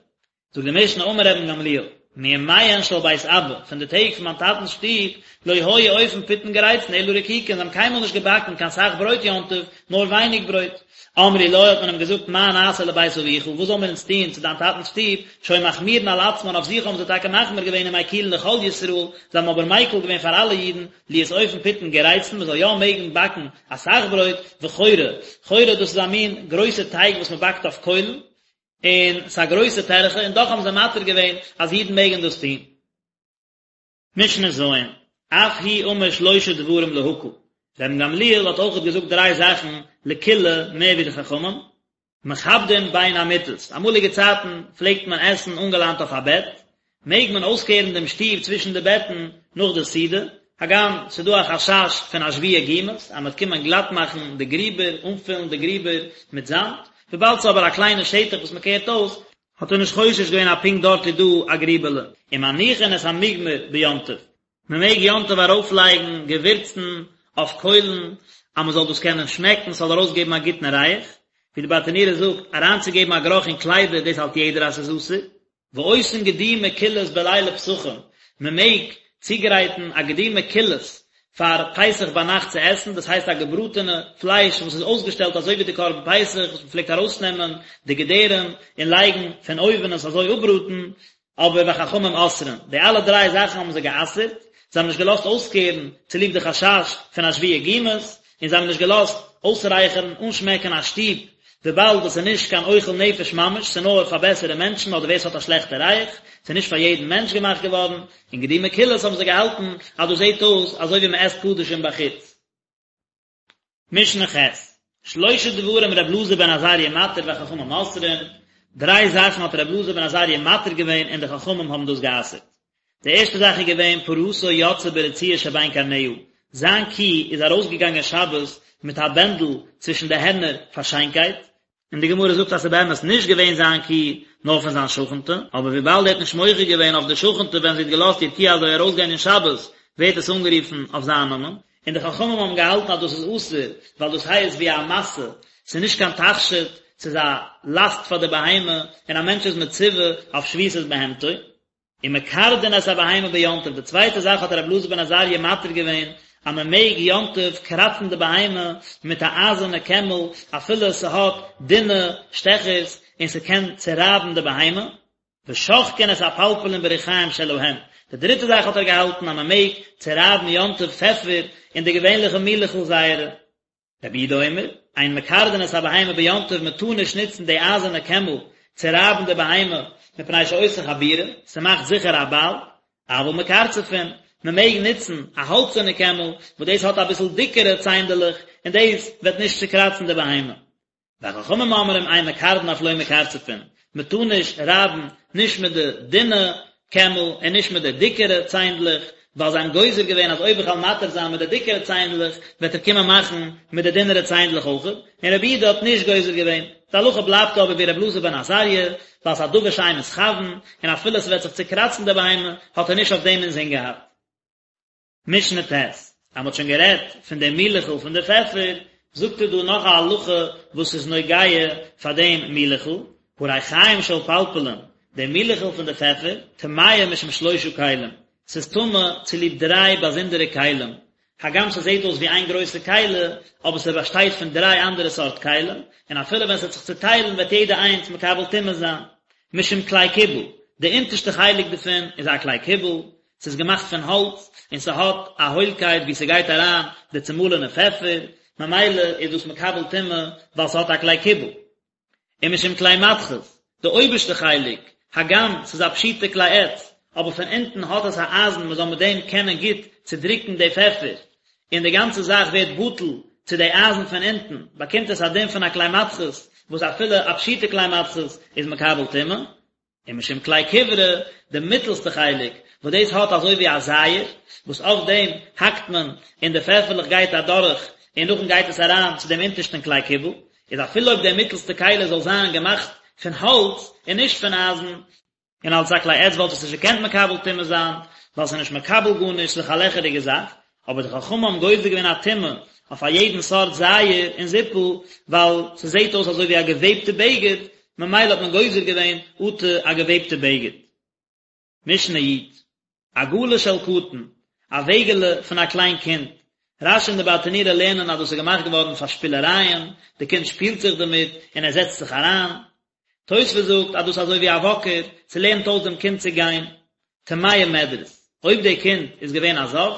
זאגט די משנה אמר רבן גמליאל, מימיהן של בית אבא, פון די טעג פון מיין טאטנ'ס שטוב, לא היו אופין פיתין גריצין אלא רקיקין, זיי האבן קיינמאל נישט געבאקן קיין סאך ברויט יום טוב, נאר ווייניג ברויט. אמרו לו, האט מען אים געזאגט, מה נעשה לבית אביך, וואס זאלן מיר אונז טון צו דיין טאטנ'ס שטוב, שהיו מחמירין על עצמן, אויף זיך האבן זיי טאקע מחמיר געווען ומקילין לכל ישראל, זיי האבן אבער מיקל געווען פאר אלע אידן, להיות אופין פיתין גריצין, מען זאל יא מעגן באקן אסאך ברויט, וחורה, חורה דאס איז א מין גרויסע טייג וואס מען באקט אויף קוילן, און ס'איז א גרויסע טרחה, און דאך האבן זיי מתיר געווען אז אידן מעגן דאס טון. משנה ז', אף הוא אמר שלשה דברים להקל, רבן גמליאל האט אויכעט געזאגט דריי זאכן לקולא מער ווי די חכמים, מכבדין בין המיטות, אמאליגע צייטן פלעגט מען עסן אנגעליינט אויף א בעט, מעג מען אויסקערן דעם שטוב צווישן די בעטן נאך די סעודה, הגם ס'איז דא א חשש פון אשוויי גומות אז מ'וועט קומען גלאט מאכן די גריבער, אנפילן די גריבער מיט זאמד, וויבאלד ס'איז אבער א קליינע שטח וואס מ'קערט אויס, האט ער נישט חושש געווען אז פונקט דארט איז דא א גריבעלע. ומניחין את המוגמר ביום טוב, מ'מעג יום טוב ארויפלייגן געווירצן אויף קוילן אז מ'זאל דאס קענען שמעקן, ס'זאל ארויסגעבן א גוטן ריח, ווי די ברטנורא זאגט, אריינצוגעבן א גערוך אין קליידער דאס האלט יעדער אז ס'איז אסור. ועושין גדי מקולס בלילי פסחים, מען מעג צוגרייטן א גדי מקולס פאר פסח ביינאכט צו עסן, דאס הייסט א געבראטענע פלייש וואס איז אויסגעשטעלט אזוי ווי די קרבן פסח וואס מען פלעגט ארויסנעמען די געדערים און לייגן פון אויבן עס אזוי אפבראטן, אבער וחכמים אוסרין, די אלע דריי זאכן האבן זיי גע'אסר'ט, זיי האבן נישט געלאזט אויסקערן צוליב די חשש פון אשוויי גומות, און זיי האבן נישט געלאזט אויסרייכערן, אנשמעקן א שטוב, וויבאלד עס איז נישט קיין אוכל נפש ממש, ס'איז נאר פאר בעסערע מענטשן אדער ווער ס'האט א שלעכטע ריח, ס'איז נישט פאר יעדן מענטש געמאכט געווארן, און גדי מקולס האבן זיי געהאלטן אז דאס זעט אויס אזוי ווי מ'עסט קדשים בחוץ. משנה ח', שלשה דברים ר' אלעזר בן עזריה מתיר וחכמים אוסרין, דריי זאכן האט ר' אלעזר בן עזריה מתיר געווען און די חכמים האבן דאס גע'אסר'ט. די ערשטע זאך איז געווען פרתו יוצאה ברצועה שבין קרניה, זיין קי איז ארויסגעגאנגען שבת מיט א בענדל צווישן די הערנער פאר שיינקייט, און די גמרא זאגט אז ס'איז באמת נישט געווען זיין קי נאר פון זיין שכנ'טע, אבער וויבאלד ער האט נישט מוחה געווען אויף די שכנ'טע ווען זי האט געלאזט איר קי אזוי ארויסגיין אין שבת, ווערט עס אנגערופן אויף זיין נאמען. און די חכמים האבן געהאלטן אז דאס איז אסור, ווייל דאס הייסט ווי א משא, ס'איז נישט קיין תכשיט, ס'איז א לאסט פאר די בהמה, און א מענטש איז מצווה אויף שביתת בהמתו. ומקרדין את הבהמה ביום טוב, די צווייטע זאך האט רבי אלעזר בן עזריה מתיר געווען אז מען מעג יום טוב קראצן די בהמה מיט א אייזערנע קעמל אפילו ס'האט דינע שטעכערס און ס'קען צורייבן די בהמה, ושוחקין את הפלפלין בריחיים שלהם, די דריטע זאך האט ער געהאלטן אז מען מעג צורייבן יום טוב פעפער אין די געווענליכע מילעכל זייערע. רבי יהודה אומר, אין מקרדין את הבהמה ביום טוב מען טאר נישט נוצן די אייזערנע קעמל צו רייבן די בהמה מפני שעושה חבורה, ס'מאכט זיכער א בייל, אבל מקרצפין, מען מעג נוצן א האלצערנע קעמל וואס דאס האט אביסל דיקערע ציינדעלעך און דאס וועט נישט צוקראצן די בהמה. וחכמים אומרים אין מקרדין אף לא מקרצפין, מען טאר נישט רייבן נישט מיט די דינע קעמל און נישט מיט די דיקערע ציינדלעך, ווייל זיי האבן גוזר געווען אז אויב איך וועל מתיר זיין מיט די דיקערע ציינדלעך וועט ער קומען מאכן מיט די דינערע ציינדלעך אויכעט, און רבי יהודה האט נישט גוזר געווען. די הלכה בלייבט אבער ווי רבי אלעזר בן עזריה, ווייל ס'איז א דבר שאין מתכוין, און אפילו ס'וועט זיך צוקראצן די בהמה האט ער נישט אויף דעם אינזין געהאט. משנה ט', אז מען האט שוין גערעדט פון דעם מילעכל פון די פעפער, זאגט ער דא נאך א הלכה וואס איז נוגע פאר דעם מילעכל, הריחיים של פלפלין, דער מילעכל פון די פעפער, טמאה משום שלושה כלים, ס'איז טמא צוליב דריי באזונדערע כלים, הגם ס'זעט אויס ווי איין גרויסע כלי, אבער ס'באשטייט פון דריי אנדערע סארט כלים, און אפילו ווען ס'וועט זיך צוטיילן וועט יעדע איינס מקבל טומאה זיין. משום כלי קיבול, די אונטערשטע חלק דערפון איז א כלי קיבול, ס'איז געמאכט פון האלץ און ס'האט א הוילקייט וואו ס'גייט אריין די צומאלענע פעפער, ממילא איז דאס מקבל טומאה ווייל ס'האט א כלי קיבול. ומשום כלי מתכות, די אויבערשטע חלק, הגם ס'איז א פשוטע כלי עץ, אבער פון אונטן האט עס א אייזן מ'זאל מיט דעם קענען גוט צודרוקן די פעפער, און די גאנצע זאך ווערט בטל צו די אייזן פון אונטן, באקומט עס א דין פון א כלי מתכות, וואס אפילו א פשוטע כלי מתכות איז מקבל טומאה. ומשום כלי כברה, די מיטעלסטע חלק, וואס דאס האט אזוי ווי א זייער, וואס אויף דעם האקט מען און די פעפערלעך גייט אדורך און נאכדעם גייט עס אריין צו דעם אונטערשטען כלי קיבול, איז אפילו אויב דער מיטעלסטע כלי זאל זיין געמאכט פון האלץ און נישט פון אייזן, און אלס א כלי עץ וואלט עס נישט געקענט מקבל טומאה זיין, ווייל ס'איז נישט מקבל גארנישט, ס'איז דאך א לעכעריגע זאך, אבער די חכמים האבן גוזר געווען א טומאה אויף א יעדן סארט זייער און זיפל, ווייל ס'זעט אויס אזוי ווי א געוועבטע בגד, ממילא האט מען גוזר געווען אטו א געוועבטע בגד. משנה י', עגלה של קטן, א וועגעלע פון א קליין קינד, רש"י און די ברטנורא לערנען אז דאס איז געמאכט געווארן פאר שפילערייען, די קינד שפילט זיך דערמיט און ער זעצט זיך אריין. תוספות זאגט אז דאס איז אזוי ווי א וואקער, ס'לערנט אויס דעם קינד צו גיין. טמאה מדרס, אויב די קינד איז געווען א זב,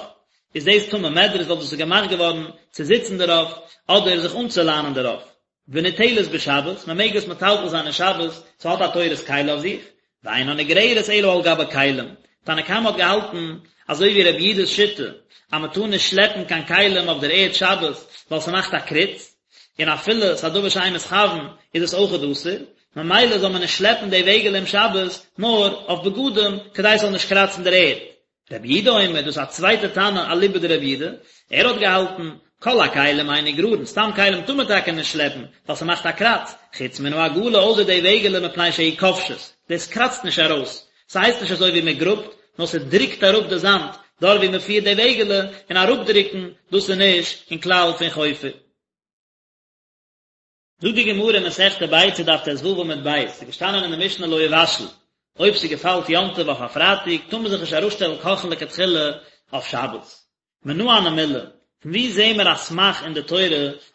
איז דאס טמא מדרס ווייל דאס איז געמאכט געווארן צו זיצן דערויף אדער זיך אנצולאנען דערויף. וניטלת בשבת, מען מעג עס מטלטל זיין אין שבת, ס'האט א תורת כלי אויף זיך, ואינה נגררת אלא על גבי כלים, תנא קמא האט געהאלטן, אזוי ווי רבי יהודה'ס שיטה, אז מען טאר נישט שלעפן קיין כלים אויף דער ערד שבת, ווייל ס'מאכט א קריץ, און אפילו ס'איז א דבר שאין מתכוין איז עס אויכעט אסור, ממילא זאל מען נישט שלעפן די וועגעלע אום שבת, נאר אויף בגדים, כדי ס'זאל נישט קראצן דער ערד. רבי יהודה אומר, דאס איז א צווייטע תנא אליבא דרבי יהודה, ער האט געהאלטן, כל הכלים אין נגררין, סתם כלים טאר מען טאקע נישט שלעפן, ווייל ס'מאכט א קראץ, חוץ מן העגלה אויסער די וועגעלע מפני שהיא כובשת, דאס קראצט נישט ארויס, ס'הייסט נישט אזוי ווי מ'גראבט, נאר ס'דרוקט אראפ די זאמד, דארט ווי מ'פירט די וועגעלע, און אראפדרוקן, דאס איז נישט אין כלל פון חופר. זאגט די גמרא אין מסכת ביצה דף ט"ו עמוד ב', ס'איז געשטאנען אין די משנה לא יבשל, אויב ס'געפאלט יום טוב אויף א פרייטאג טאר מען זיך נישט אראפשטעלן קאכן לכתחילה אויף שבת. מנא הני מילי, פון וואו זעהן מיר א סמך אין די תורה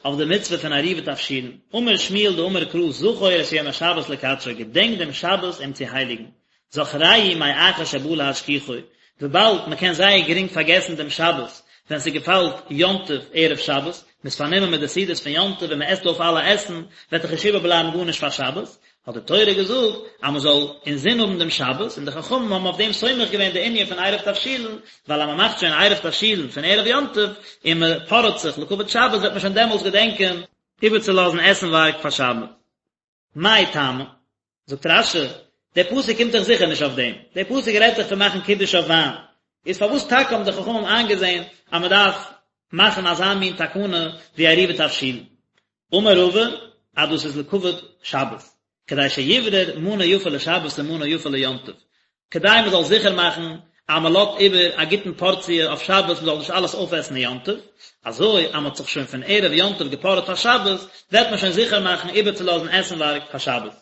אויף די מצוה פון עירובי תבשילין? אמר שמואל דאמר קרא זכור את יום השבת לקדשו, געדענק דעם שבת אים צו הייליגן. זכרהו מאחר שבא להשכיחו, וויבאלד מען קען זייער גרינג פארגעסן דעם שבת ווען ס'געפאלט יום טוב ערב שבת, מ'איז פארנומען מיט די סעודות פון יום טוב און מ'עסט אויף אלע עסן, וועט דאך נישט איבערבלייבן גארנישט פאר שבת, האט די תורה געזאגט אז מ'זאל אינזין האבן דעם שבת, און די חכמים האבן אויף דעם סומך געווען די ענין פון עירוב תבשילין, ווייל אז מ'מאכט שוין עירוב תבשילין פון ערב יום טוב, און מ'פארעט זיך לכבוד שבת וועט מען שוין דעמאלטס געדענקען איבערצולאזן עסנווארג פאר שבת. מאי טעמא? זאגט רש"י, דער פסוק קומט דאך זיכער נישט אויף דעם, דער פסוק רעדט דאך פון מאכן קידוש אויף וויין, איז פארוואס טאקע האבן די חכמים איינגעזען אז מען דארף מאכן אזא מין תקנה ווי עירובי תבשילין? אמר רבא, אז דאס איז לכבוד שבת, כדי שיברר מנה יפה לשבת ומנה יפה ליום טוב, כדי מען זאל זיכער מאכן אז מען לאזט איבער א גוטן פארציע אויף שבת מען זאל נישט אלעס אויפעסן אין יום טוב, אזוי אז מען האט זיך שוין פון ערב יום טוב געפארעט פאר שבת, וועט מען שוין זיכער מאכן איבערצולאזן עסנווארג פאר שבת.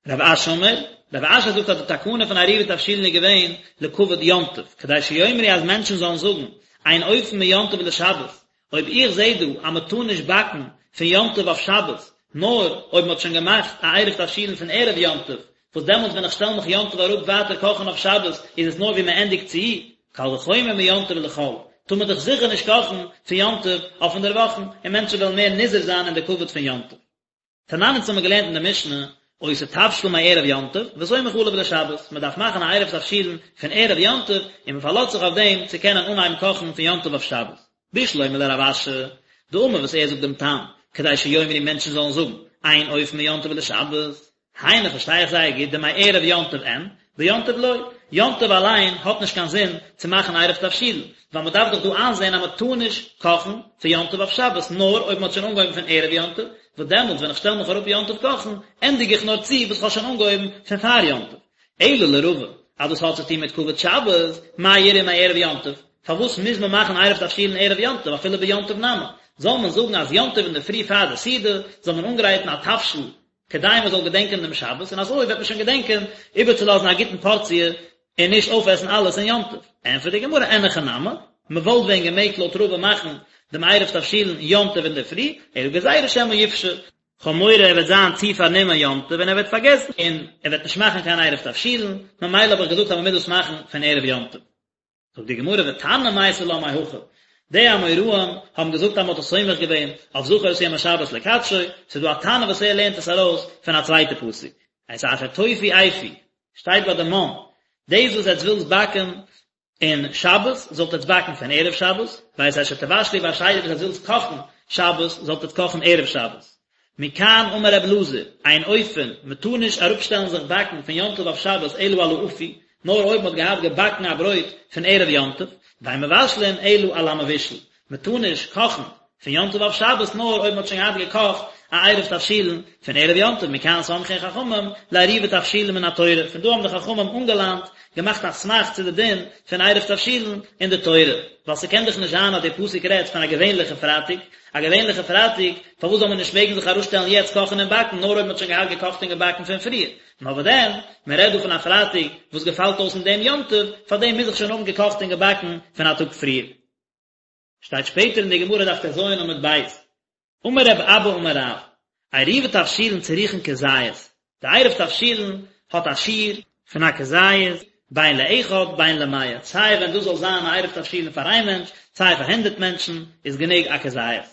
רב אשי אמר, רב אשי זאגט אז די תקנה פון עירובי תבשילין איז געווען לכבוד יום טוב, כדי שיאמרו אז מענטשן זאלן זאגן, אין אופין מיום טוב לשבת, אויב איך זעה דא אז מען טאר נישט באקן פון יום טוב אויף שבת, נאר אויב מען האט שוין געמאכט א עירוב תבשילין פון ערב יום טוב, וואס דעמאלטס ווען איך שטעל מיך יום טוב אראפ ווייטער קאכן אויף שבת איז עס נאר ווי מען ענדיגט צו, קל וחומר מיום טוב לחול, טאר מען דאך זיכער נישט קאכן פון יום טוב אויף אינדערוואכן, און מענטשן וועלן מער נזהר זיין אין די כבוד פון יום טוב. תנן אונז האבן מיר געלערנט אין די משנה, עושה תבשיל מערב יום טוב, וסומך עליו לשבת, מען דארף מאכן א עירוב תבשילין פון ערב יום טוב, און מען פארלאזט זיך אויף דעם צו קענען אנהייבן קאכן פון יום טוב אויף שבת. בשלמא לרב אשי, דאמר וואס ער זאגט דעם טעם, כדי שיאמרו מענטשן זאלן זאגן, אין אופין מיום טוב לשבת. היינו פארשטיי איך זייער גוט דמערב יום טוב אין, ביום טוב לא, יום טוב אליין האט נישט קיין זין צו מאכן עירוב תבשילין, ווייל מען דארף דאך דא איינזען אז מען טאר נישט קאכן פון יום טוב אויף שבת נאר אויב מען האט שוין אנגעהויבן פון ערב יום טוב, וואס דעמאלטס ווען איך שטעל מיך אראפ יום טוב קאכן, ענדיג איך נאר צו וואס איך האב שוין אנגעהויבן פון פאר יום טוב. אלא לרבא, אז דאס האט צו טון מיט כבוד שבת, מאי איריא מערב יום טוב? פארוואס מוז מען מאכן עירוב תבשילין ערב יום טוב אפילו ביום טוב נמי? זאל מען זאגן אז יום טוב אינדערפרי פאר די סעודה זאל מען אנגרייטן א תבשיל כדי מען זאל געדענקען דעם שבת, און אזוי וועט מען שוין געדענקען איבערצולאזן א גוטן פארציע און נישט אויפעסן אלעס אין יום טוב. ענטפערט די גמרא, אין הכי נמי, מען וואלט ווען געמעגט לויט רבא מאכן דעם עירוב תבשילין יום טוב אינדערפרי, אלא גזירה שמא יפשה, כ'האב מורא ער וועט זיין צו פארנומען יום טוב און ער וועט פארגעסן און ער וועט נישט מאכן קיין עירוב תבשילין, ממילא האב איך געזאגט אז מען מוז דאס מאכן פון ערב יום טוב. זאגט די גמרא ותנא מייתי לה מהכא, די אמוראים האבן געזאגט אז מען האט עס סומך געווען אויף זכור את יום השבת לקדשו, ס'איז דא א תנא וואס ער לערנט עס ארויס פון א צווייטע פסוק, את אשר תאפו אפו, שטייט ביי די מן, דאס וואס עטס ווילטס באקן אין שבת, זאלט עטס באקן פון ערב שבת, ואת אשר תבשלו בשני וואס עטס ווילטס קאכן שבת, זאלט עטס קאכן ערב שבת. מכאן אמר רב אלעזר, אין אופין, מען טאר נישט אראפשטעלן זיך באקן פון יום טוב אויף שבת אלא על האפוי, נאר אויב מען האט געהאט געבאקן א ברויט פון ערב יום טוב, ואין מבשלין אלא על המבושל, מען טאר נישט קאכן. פון יום טוב אויף שבת נאר אויב מען האט שוין געהאט געקאכט א עירוב תבשילין פון ערב יום טוב מכאן סמכו חכמים לעירובי תבשילין מן התורה, פון דא האבן די חכמים אנגעלאנט, געמאכט א סמך צו די דין פון עירוב תבשילין אין די תורה, ווייל ס'קען דאך נישט זיין אז די פסוק רעדט פון א געווענליכע פרייטאג, א געווענליכע פרייטאג, פארוואס זאל מען נישט מעגן זיך אראפשטעלן יעצט קאכן און באקן נאר אויב מען האט שוין געהאט געקאכט און געבאקן פון פריער, נאר וואס דען, מען רעדט דא פון א פרייטאג וואס געפאלט אויס אין דעם יום טוב, פארדעם מוז איך שוין האבן געקאכט און געבאקן פון א טאג פריער. שטייט שפעטער אין די גמרא דף טז עמוד ב', אמר רב אבא אמר רב, עירובי תבשילין צריכין כזית, די עירוב תבשילין האט א שיעור פון א כזית, בין לאחד בין למאה, סיי ווען דאס זאל זיין א עירוב תבשילין פאר איין מענטש, סיי פאר הונדערט מענטשן, איז גענוג א כזית.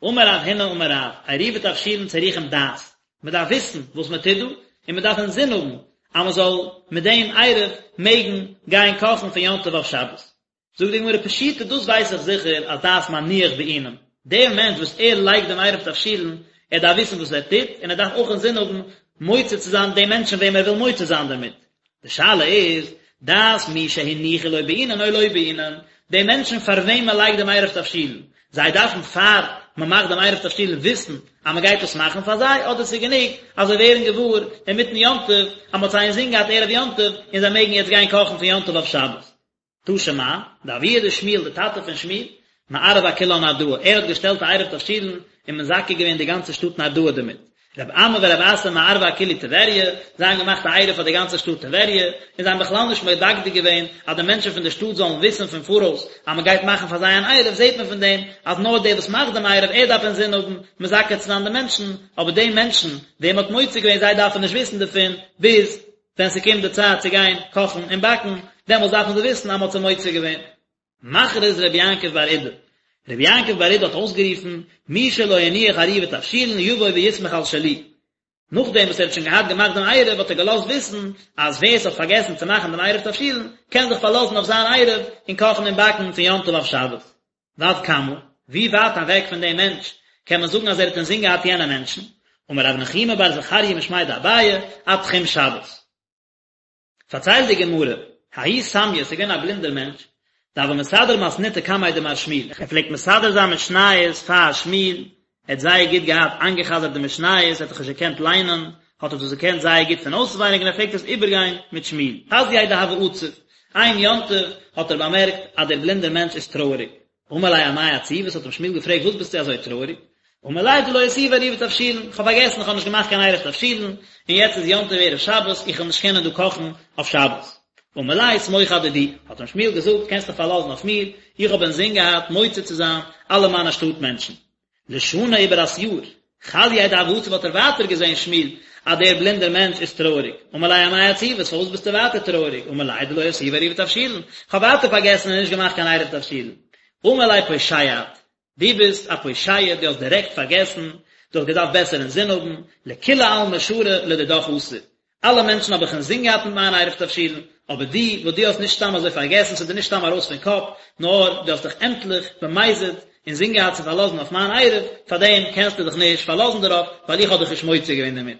אמר רב הונא אמר רב, עירובי תבשילין צריכים דעת, מען דארף וויסן וואס מען טוט דא, און מען דארף אינזין האבן אז מען זאל מיט דעם עירוב מעגן גיין קאכן פון יום טוב אויף שבת. זאגט די גמרא פשיטא דאס ווייס איך זיכער אז דעת מניח בעינן, דער מענטש וואס ער לייגט דעם עירוב תבשילין, ער דארף וויסן וואס ער טוט, און ער דארף אויך אינזין האבן מוציא צו זיין די מענטשן וועם ער וויל מוציא זיין דערמיט. די שאלה איז, דעת מי שהניחו לו בעינן או לא בעינן, די מענטשן פאר וועם מען לייגט דעם עירוב תבשילין, זיי דארפן פאר מען מאכט דעם עירוב תבשילין וויסן אז מען גייט עס מאכן פאר זיי, אדער ס'איז גענוג אז זיי ווערן געוואר אינמיטן יום טוב אז מען האט זיי אינזין געהאט ערב יום טוב און זיי מעגן יעצט גיין קאכן פון יום טוב אויף שבת. תא שמע, דאבוה דשמואל, די טאטע פון שמואל, מערב אכולה נהרדעא, ער האט געשטעלט א עירוב תבשילין און מזכה געווען די גאנצע שטאט נהרדעא דערמיט. רב אמי ורב אסי מערבי אכולהו טבריא, זיי האבן געמאכט א עירוב פאר די גאנצע שטאט טבריה, און זיי האבן בכלל נישט מדקדק געווען אז די מענטשן פון די שטאט זאלן וויסן פון פאראויס אז מען גייט מאכן פאר זיי אן עירוב, זעט מען פון דעם אז נאר דער וואס מאכט דעם עירוב ער דארף אינזין האבן מזכה צו זיין די מענטשן, אבער די מענטשן וועם מען האט מוציא געווען זיי דארפן נישט וויסן דערפון ביז ווען ס'קומט די צייט צו גיין קאכן און באקן, דעמאלטס דארפן זיי וויסן אז מ'האט זיי מוציא געווען. מכריז רבי יעקב בר אידי, רבי יעקב בר אידי האט אויסגערופן, מי שלא הניח עירובי תבשילין יבוא ויסמוך על שלי. נאכדעם וואס ער האט שוין געהאט געמאכט דעם עירוב האט ער געלאזט וויסן אז ווער ס'האט פארגעסן צו מאכן דעם עירוב תבשילין קען זיך פארלאזן אויף זיין עירוב און קאכן און באקן פון יום טוב אויף שבת. ועד כמה, ווי ווייט אוועק פון דעם מענטש קען מען זאגן אז ער האט אינזין געהאט יענע מענטשן? אמר רב נחומי בר זכריה משמיה דאביי, עד תחום שבת. פארציילט די גמרא, ההוא סמיא, ס'איז געווען א בלינדער מענטש, דהוה מסדר מתניתא קמיה דמר שמואל, ער פלעגט מסדר זיין משניות פאר שמואל, ער האט זייער גוט געהאט איינגעחזרט די משניות, ער האט דאך נישט געקענט ליינען, האט ער דאס געקענט זייער גוט פון אויסווייניג און ער פלעגט עס איבערגיין מיט שמואל. חזייה דהוה עציב, איין יום טוב האט ער באמערקט אז דער בלינדער מענטש איז טרויעריג. אמר ליה אמאי עציבת, האט אים שמואל געפרעגט וואס ביסטו אזוי טרויעריג? אמר ליה דלא אותיבי עירובי תבשילין, איך האב פארגעסן איך האב נישט געמאכט קיין עירוב תבשילין, און יעצט איז יום טוב ערב שבת, איך וועל נישט קענען דא קאכן אויף שבת. אמר ליה סמוך אדידי, האט אים שמואל געזאגט קענסט דיך פארלאזן אויף מיר, איך האב אינזין געהאט מוציא צו זיין אלע מיינע שטאט מענטשן. לשנה איבער א יאר, חזייה דהוה עצב האט ער ווייטער געזען שמואל אז דער בלינדער מענטש איז טרויעריג, אמר ליה אמאי עציבת פארוואס ביסטו ווייטער טרויעריג, אמר ליה דלא אותיבי עירובי תבשילין, כ'האב ווייטער פארגעסן און נישט געמאכט קיין עירוב תבשילין, אמר ליה פושע את, דו ביסט א פושע דו האסט דירעקט פארגעסן, דו האסט געדארפט בעסער אינזין האבן, לכולי עלמא שרי לדידך אסור, אלע מענטשן האב איך אינזין געהאט מיט מיין עירוב תבשילין, אבער דו, וואס דו האסט נישט סתם אזוי פארגעסן, ס'איז דיר נישט סתם ארויס פון קאפ, נאר דו האסט דיך עמטליך, במזיד, אינזין געהאט צו פארלאזן אויף מיין עירוב, פארדעם קענסטו דיך נישט פארלאזן דערויף, ווייל איך האב דיך נישט מוציא געווען דערמיט.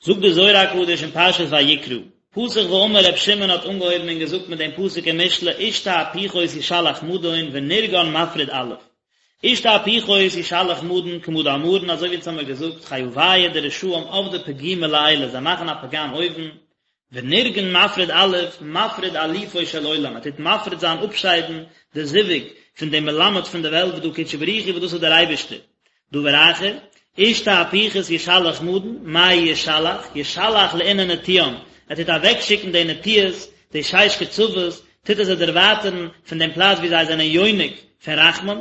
זאגט דער זוהר הקדוש אין פרשת ויקרא, פתח ואמר ר' שמעון האט אנגעהויבן און געזאגט מיט דעם פסוק אין משלי איש תהפוכות ישלח מדון ונרגן מפריד אלוף. איש תהפוכות ישלח מדון כמה דאמרן אזוי ווי אונז האמיר געזאגט חיוייהו די רשעים עבדי פגימא לעילא זיי מאכן א פגם אויבן, ונרגן מפריד אלוף מפריד אלופו של עולם ער טוט מפריד זיין אפשיידן די זיווג פון דעם מלמד פון די וועלט וואס דא קודשא בריך הוא וואס דאס איז דער אייבערשטער. דבר אחר, איש תהפוכות ישלח מדון, מאי ישלח, ישלח לאינון נטיען, ער טוט אוועקשיקן די נטיעות, די שש קצוות, טוט ער זיי דערווייטערן פון דעם פלאץ וואו זיי זענען יונק פון רחמים,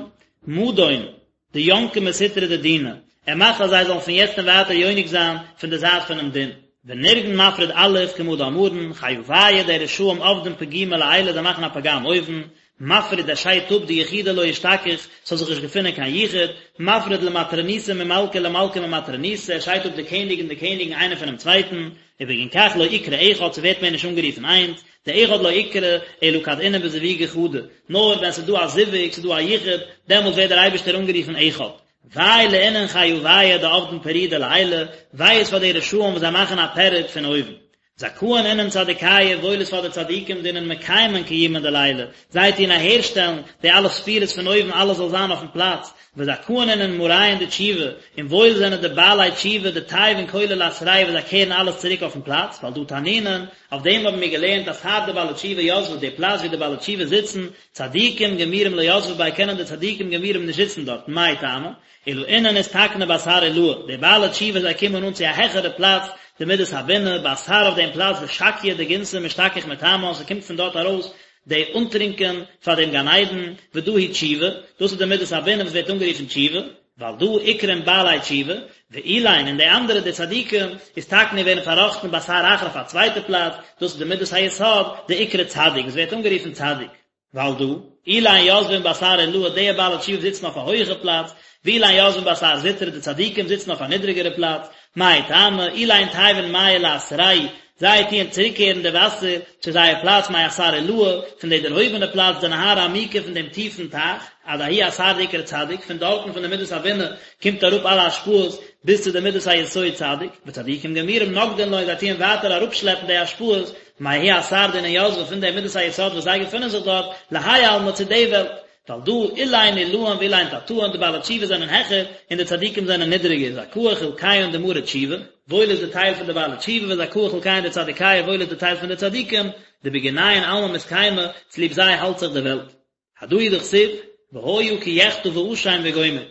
מדון, דינקי מסטרא דדינא, ער מאכט אז זיי זאלן פון יעצט און ווייטער יונק זיין פון די זייט פונעם דין. ונרגן מפריד אלוף כמה דאמרן, חיוייהו די רשעים עבדין פגימא לעילא זיי מאכן א פגם אויבן, מפריד ער שיידט אפ דיחודא לא אשתכח, ס'זאל זיך נישט געפונען קיין יחוד, מפריד למטרוניתא ממלכא ולמלכא ממטרוניתא, ער שיידט אפ די קעניג און די קעניגן איינער פונעם צווייטן, ובגין כך לא אקרי אחד, ס'ווערט מער נישט אנגערופן איינס, דאחד לא אקרי אלא כד אינון בזווגא חדא, נאר ווען ס'איז דא א זיווג, ס'איז דא א יחוד, דעמאלט ווערט דער אייבערשטער אנגערופן אחד. וויי לאינון חיוייהו דעבדין פירודא לעילא, וויי איז פאר די רשעים וואס זיי מאכן א פירוד פון אויבן. זכאין אינון צדיקיא, וואויל איז פאר די צדיקים דאינון מקיימין קיומא דלעילא, זיי טוען אהערשטעלן די אלע ספירות פון אויבן אלעס זאל זיין אויפן פלאץ, וזכאין אינון מאריהון דתשובה, און וואויל זענען די בעלי תשובה דתייבין כלא לאתריה וואס זיי קערן אלעס צוריק אויפן פלאץ, ועל דא תנינן, אויף דעם האבן מיר געלערנט אתר דבעלי תשובה יתבי די פלאץ ווי די בעלי תשובה זיצן, צדיקים גמורים לא יתבי ביה קענען די צדיקים גמורים נישט זיצן דארטן, מאי טעמא? אלא אינון אתתקנו באתר עילאה, די בעלי תשובה זיי קומען אן צו א העכערע פלאץ, דמידת הבינה, באתר אויף דעם פלאץ דשקיא דגנתא משתכח מתמן, ס'קומט פון דארט ארויס די אנטרינקען פאר דעם גן עדן, ודא היא תשובה, דאס איז די מידת הבינה וואס ווערט אנגערופן תשובה, ועל דא אקרון בעלי תשובה, ואלין און די אנדערע די צדיקים, אתתקנו ווערן פארראכטן באתר אחר אויף א צווייטע פלאץ, דאס איז די מידת היסוד, דאקרי צדיק, וואס ווערט אנגערופן צדיק. ועל דא, אלין יתבין באתר עילאה די בעלי תשובה זיצן אויף א הויעכע פלאץ, ואלין יתבין באתר זוטרא די צדיקים זיצן אויף א נידריגערע פלאץ, מאי טעמא, אלין תייבין מיא לאתרייהו, זיי טוען צוריקקערן די וואסער צו זייער פלאץ מאתר עילאה, פון די דערהויבענע פלאץ דנהרא עמיקא פון דעם טיפן טייך, עד ההוא אתר דאקרי צדיק, פון דארטן פון די מידת הבינה קומט אראפ אלע השפעות ביז צו די מידת היסוד צדיק, וצדיקים גמורים נגדין לון זיי טוען ווייטער אראפשלעפן די השפעות מההוא אתר דאינון יתבי פון די מידת היסוד וואס זיי געפונען זיך דארט, להאי עלמא צו די וועלט, ועל דא אלין עילאין ואלין תתאין די בעלי תשובה זענען העכער און די צדיקים זענען נידריגער, זכאה חולקיהון דמארי תשובה, וואויל איז די טייל פון די בעלי תשובה וזכאה חולקיהון דצדיקיא וואויל איז די טייל פון די צדיקים, דבגינייהו עלמא מתקיימא, צוליב זיי האלט זיך די וועלט. הדא הוא דכתיב, והיה כי יחטא ואשם וגומר.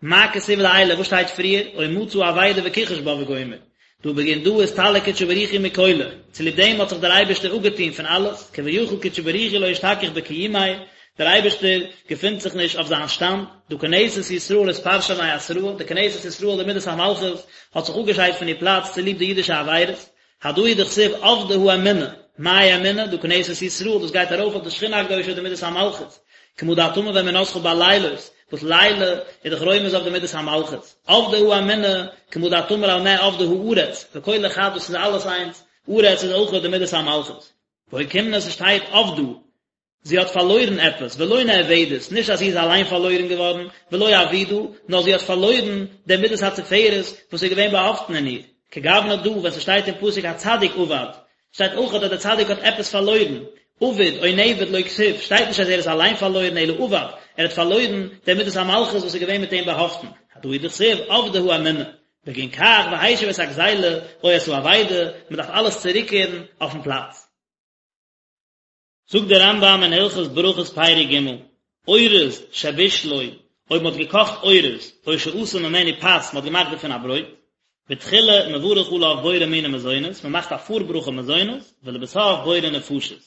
מה כתיב לעילא וואס שטייט פריער, או מצא אבידה וכחש בה וגומר. דהא בגין דא אסתלק קודשא בריך הוא מכלא, צוליב דעם האט זיך דער אייבערשטער אפגעטון פון אלעס, כביכול קודשא בריך הוא לא אשתכח בקיומיה, דער אייבערשטער געפינט זיך נישט אויף זיין שטאנד, דהא כנסת ישראל אתפרשא מאתרהא, די כנסת ישראל די מידת המלכות האט זיך אפגעשיידט פון איר פלאץ צוליב די אידישע עבירות, הדא הוא דכתיב אבדה האמונה, מאי אמונה? דהא כנסת ישראל, דאס גייט ארויף אויף די שכינה הקדושה די מידת המלכות, כמה דאת אמר ואמונתך בלילות, וואס לילה איז דאך רומז אויף די מידת המלכות, אבדה האמונה, כמה דאת אמר על מה אבדה הארץ, וכולא חד דאס איז אלעס איינס, ארץ איז אויך די מידת המלכות. ואוקימנא ס'שטייט אבדה, זי האט פארלוירן עפעס, ולא נאבדת, נישט אז זי איז אליין פארלוירן געווארן, ולא אבידה, נאר זי האט פארלוירן די מידת התפארת וואס איז געווען באהאפטן אין איר. כגוונא דא, ווען ס'שטייט אין פסוק הצדיק אבד, שטייט אויך אז דער צדיק האט עפעס פארלוירן, אביד או נאבד לא כתיב, שטייט נישט אז ער איז אליין פארלוירן אלא אבד, ער האט פארלוירן די מידת המלכות וואס איז געווען מיט אים באהאפטן. הדא הוא דכתיב, אבדה האמונה. בגין כך והשיב את הגזילה או את האבידה, מ'דארף אלעס צוריקקערן אויפן פלאץ. זאגט דער רמב"ם אין הלכות ברכות פרק ג', אורז שבישלו, אויב מען האט געקאכט אורז, או שעשה ממנו פת, מען האט געמאכט דערפון א ברויט, בתחילה מברך עליו בורא מיני מזונות, מען מאכט א פארברכה מזונות, ולבסוף בורא נפשות,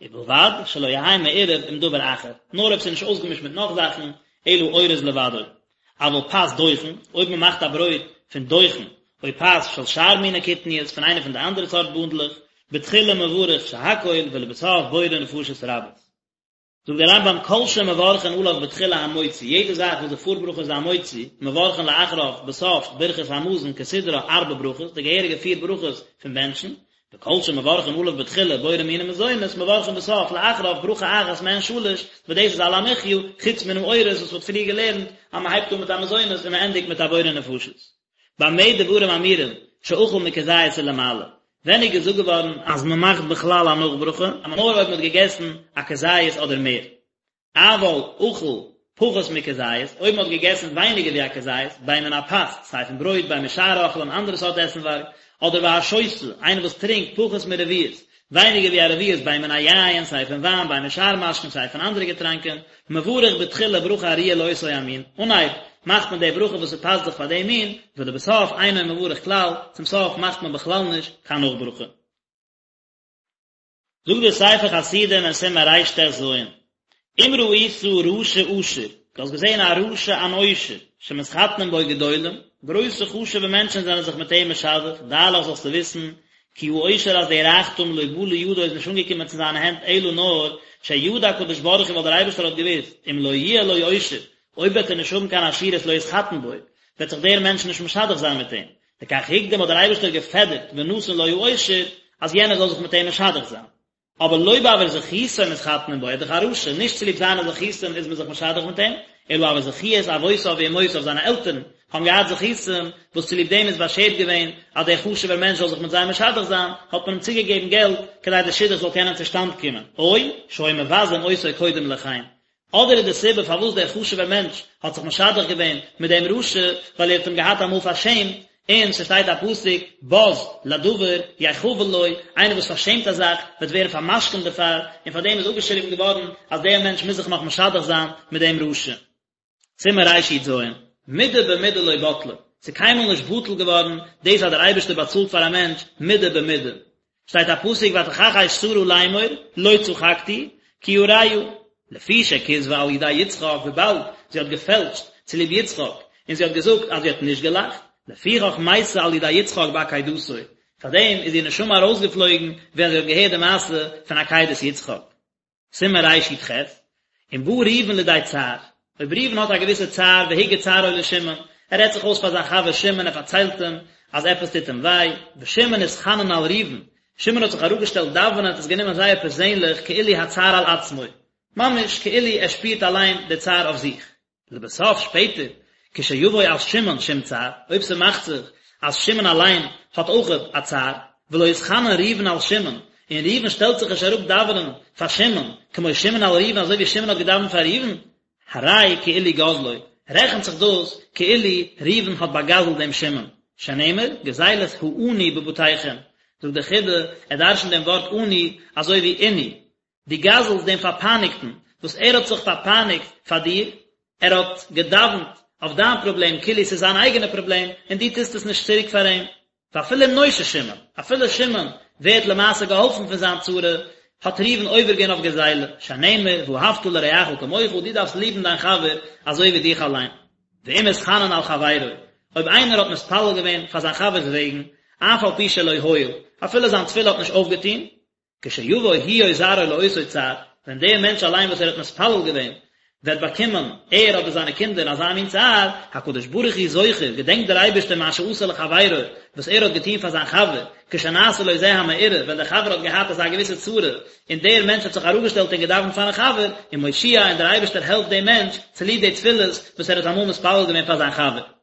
ובלבד שלא יהא מעורב עם דבר אחר, נאר אויב ס'איז נישט אויסגעמישט מיט נאך זאכן, אלא אורז לבדו. אבל פת דוחן, אויב מען מאכט א ברויט פון דוחן, או פת של שאר מיני קטניות, פון איינע פון די אנדערע סארט בונדלעך, בתחילה מברך שהכל ולבסוף בורא נפשות רבות. זאגט דער רמב"ם כל שמברכין עליו בתחילה המוציא, יעדע זאך וואס די פארברכה איז המוציא, מברכין לאחריו בסוף ברכת המזון כסדרה ארבע ברכות, די געהעריגע פיר ברכות פון בענטשן, וכל שמברכין עליו בתחילה בורא מיני מזונות מברכין בסוף לאחריו ברכה אחת מעין שלש, וואס דאס איז על המחיה, חוץ מן האורז וואס מ'האט פריער געלערנט אז מ'הייבט אן מיט א מזונות און מ'ענדיגט מיט א בורא נפשות. במה דברים אמורים שאכל מכזית ולמעלה? ווען איז געזאגט געווארן אז מ'מאכט בכלל א נאכברכה נאר אויב מ'האט געגעסן א כזית אדער מער? אבל אכל פחות מכזית, אויב מען האט געגעסן ווייניגער ווי א כזית, בין מן הפת, סיי פון ברויט, בין משאר אוכלים, אנדערע סארט עסנווארג, אדער והשותה, איינער וואס טרינקט פחות מרביעית, ווייניגער ווי א רביעית, בין מן היין, סיי פון וויין, בין משאר משקין, סיי פון אנדערע געטראנקען, מברך בתחילה ברכה הראויה לאותו המין, אנהייב מאכט מען די ברכה וואס ס'פאסט זיך פאר דעם מין, ולבסוף אינו מברך כלל, צום סוף מאכט מען בכלל נישט קיין נאכברכה. זאגט דער ספר חסידים אין סימן רט"ז, אם ראית רשע עשיר, דו האסט געזען א רשע אן עושר, שמתחתנים בו גדולים, גרויסע חשוב'ע מענטשן זענען זיך מיט אים משדך, דע לך זאלסטו וויסן, כי העושר אז דער רייכטום לא בא לידו איז נישט אנגעקומען צו זיינע הענט אלא נאר שידע הקדוש ברוך הוא ווייל דער אייבערשטער האט געוואוסט, אם לא יהיה לו עושר, אויב וועט ער נישט האבן קיין עשירות לא יתחתן בו, וועט זיך דער מענטש נישט משדך זיין מיט אים, לכך הקדים האט דער אייבערשטער געפעדערט ונתן לו העושר אז יענער זאל זיך מיט אים משדך זיין. אבער לא בעבור זכותו מתחתנים בו, ער איז דאך א רשע, נישט צוליב זיינע זכותים איז מען זיך משדך מיט אים, אלא בעבור זכיות אבותיו ואמותיו זיינע עלטערן. האבן געהאט זכותים וואס צוליב דעם איז באשערט געווען אז דער חשוב'ער מענטש זאל זיך מיט זיי משדך זיין, האט מען אים צוגעגעבן געלט כדי דער שידוך זאל קענען צושטאנד קומען, או שהיו מבזין אותו קודם לכן, אדער איז די סיבה פארוואס דער חשוב'ער מענטש האט זיך משדך געווען מיט דעם רשע, ווייל ער האט אים געהאט אמאל פארשעמט, און ס'שטייט א פסוק, בז לדבר יחבל לו, איינער וואס פארשעמט א זאך וועט ווערן פארמשכונ'ט דערפאר, און פאר דעם איז אפגעשריבן געווארן אז דער מענטש מוז זיך נאך משדך זיין מיט דעם רשע. סימן רי"ז, מידה במידה לא בטלה, ס'איז קיינמאל נישט בטל געווארן דאס אז דער אייבערשטער באצאלט פאר א מענטש מידה במידה. שטייט א פסוק ותכחש שרה לאמור לא צחקתי כי יראה, לפי שכזבה על ידי יצחק וויבאלד זי האט געפעלשט צוליב יצחק און זי האט געזאגט אז זי האט נישט געלאכט, לפיכך מתה על ידי יצחק בעקידתו, פארדעם איז איר נשמה ארויסגעפלויגן ווען זי האט געהערט די מעשה פון עקידת יצחק. סימן רי"ח, אם בא ראובן לידי צער, אויב ראובן האט א געוויסע צער והגיד צערו לשמעון, ער רעדט זיך אויס פאר זיין חבר שמעון, ער פארציילט אים אז עפעס טוט אים וויי, ושמעון התחנן על ראובן, שמעון האט זיך אראפגעשטעלט דאווענען, האט עס גענומען זייער פערזענליך כאילו הצער על עצמו, ממש כאילו ער שפירט אליין די צער אויף זיך. לבסוף שפעטער, כשיבוא על שמעון שום צער, אויב ס'מאכט זיך אז שמעון אליין האט אויכעט א צער, ולא יתחנן ראובן על שמעון, און ראובן שטעלט זיך נישט אראפ דאווענען פאר שמעון, כמו שמעון על ראובן אזוי ווי שמעון האט געדאווענט פאר ראובן, הרי כאילו גזלו, רעכנט זיך דאס כאילו ראובן האט באגזלט דעם שמעון, שנאמר, גזלת העני בבתיכם, זאגט דער חיד"א, ער דרשנט דעם ווארט עני אזוי ווי עינוי, דו גזל'סט דעם פארפייניגטן, וואס ער האט זיך פארפייניגט פאר דיר, ער האט געדאווענט אויף דיין פראבלעם כאילו ס'איז זיין אייגענע פראבלעם, און דו טוסט עס נישט צוריק פאר אים. ואפילו אם נושע שמעון, אפילו שמעון ווערט למעשה געהאלפן פון זיין צרה, האט ראובן עובר געווען אויף גזילה, שנאמר ואהבת לרעך כמוך, דו דארפסט ליבן דיין חבר אזוי ווי דיך אליין. ואם התחנן על חברו, אויב איינער האט מתפלל געווען פאר זיין חבר'ס וועגן, אף על פי שלא הועיל, אפילו זיין תפילה האט נישט אויפגעטון, כשיבוא הוא או זרעו לאותו צער, ווען דער מענטש אליין וואס ער האט מתפלל געווען, וועט באקומען, ער אדער זיינע קינדער, אזא מין צער, הקדוש ברוך הוא זוכר, געדענקט דער אייבערשטער מה שעשה לחבירו, וואס ער האט געטון פאר זיין חבר, כשנעשה לו זה המאורע, ווען דער חבר האט געהאט אזא געוויסע צרה, און דער מענטש האט זיך אראפגעשטעלט און געדאווענט פארן חבר, ומושיע, און דער אייבערשטער העלפט דעם מענטש, צוליב די תפילות וואס ער האט אמאל מתפלל געווען פאר זיין חבר.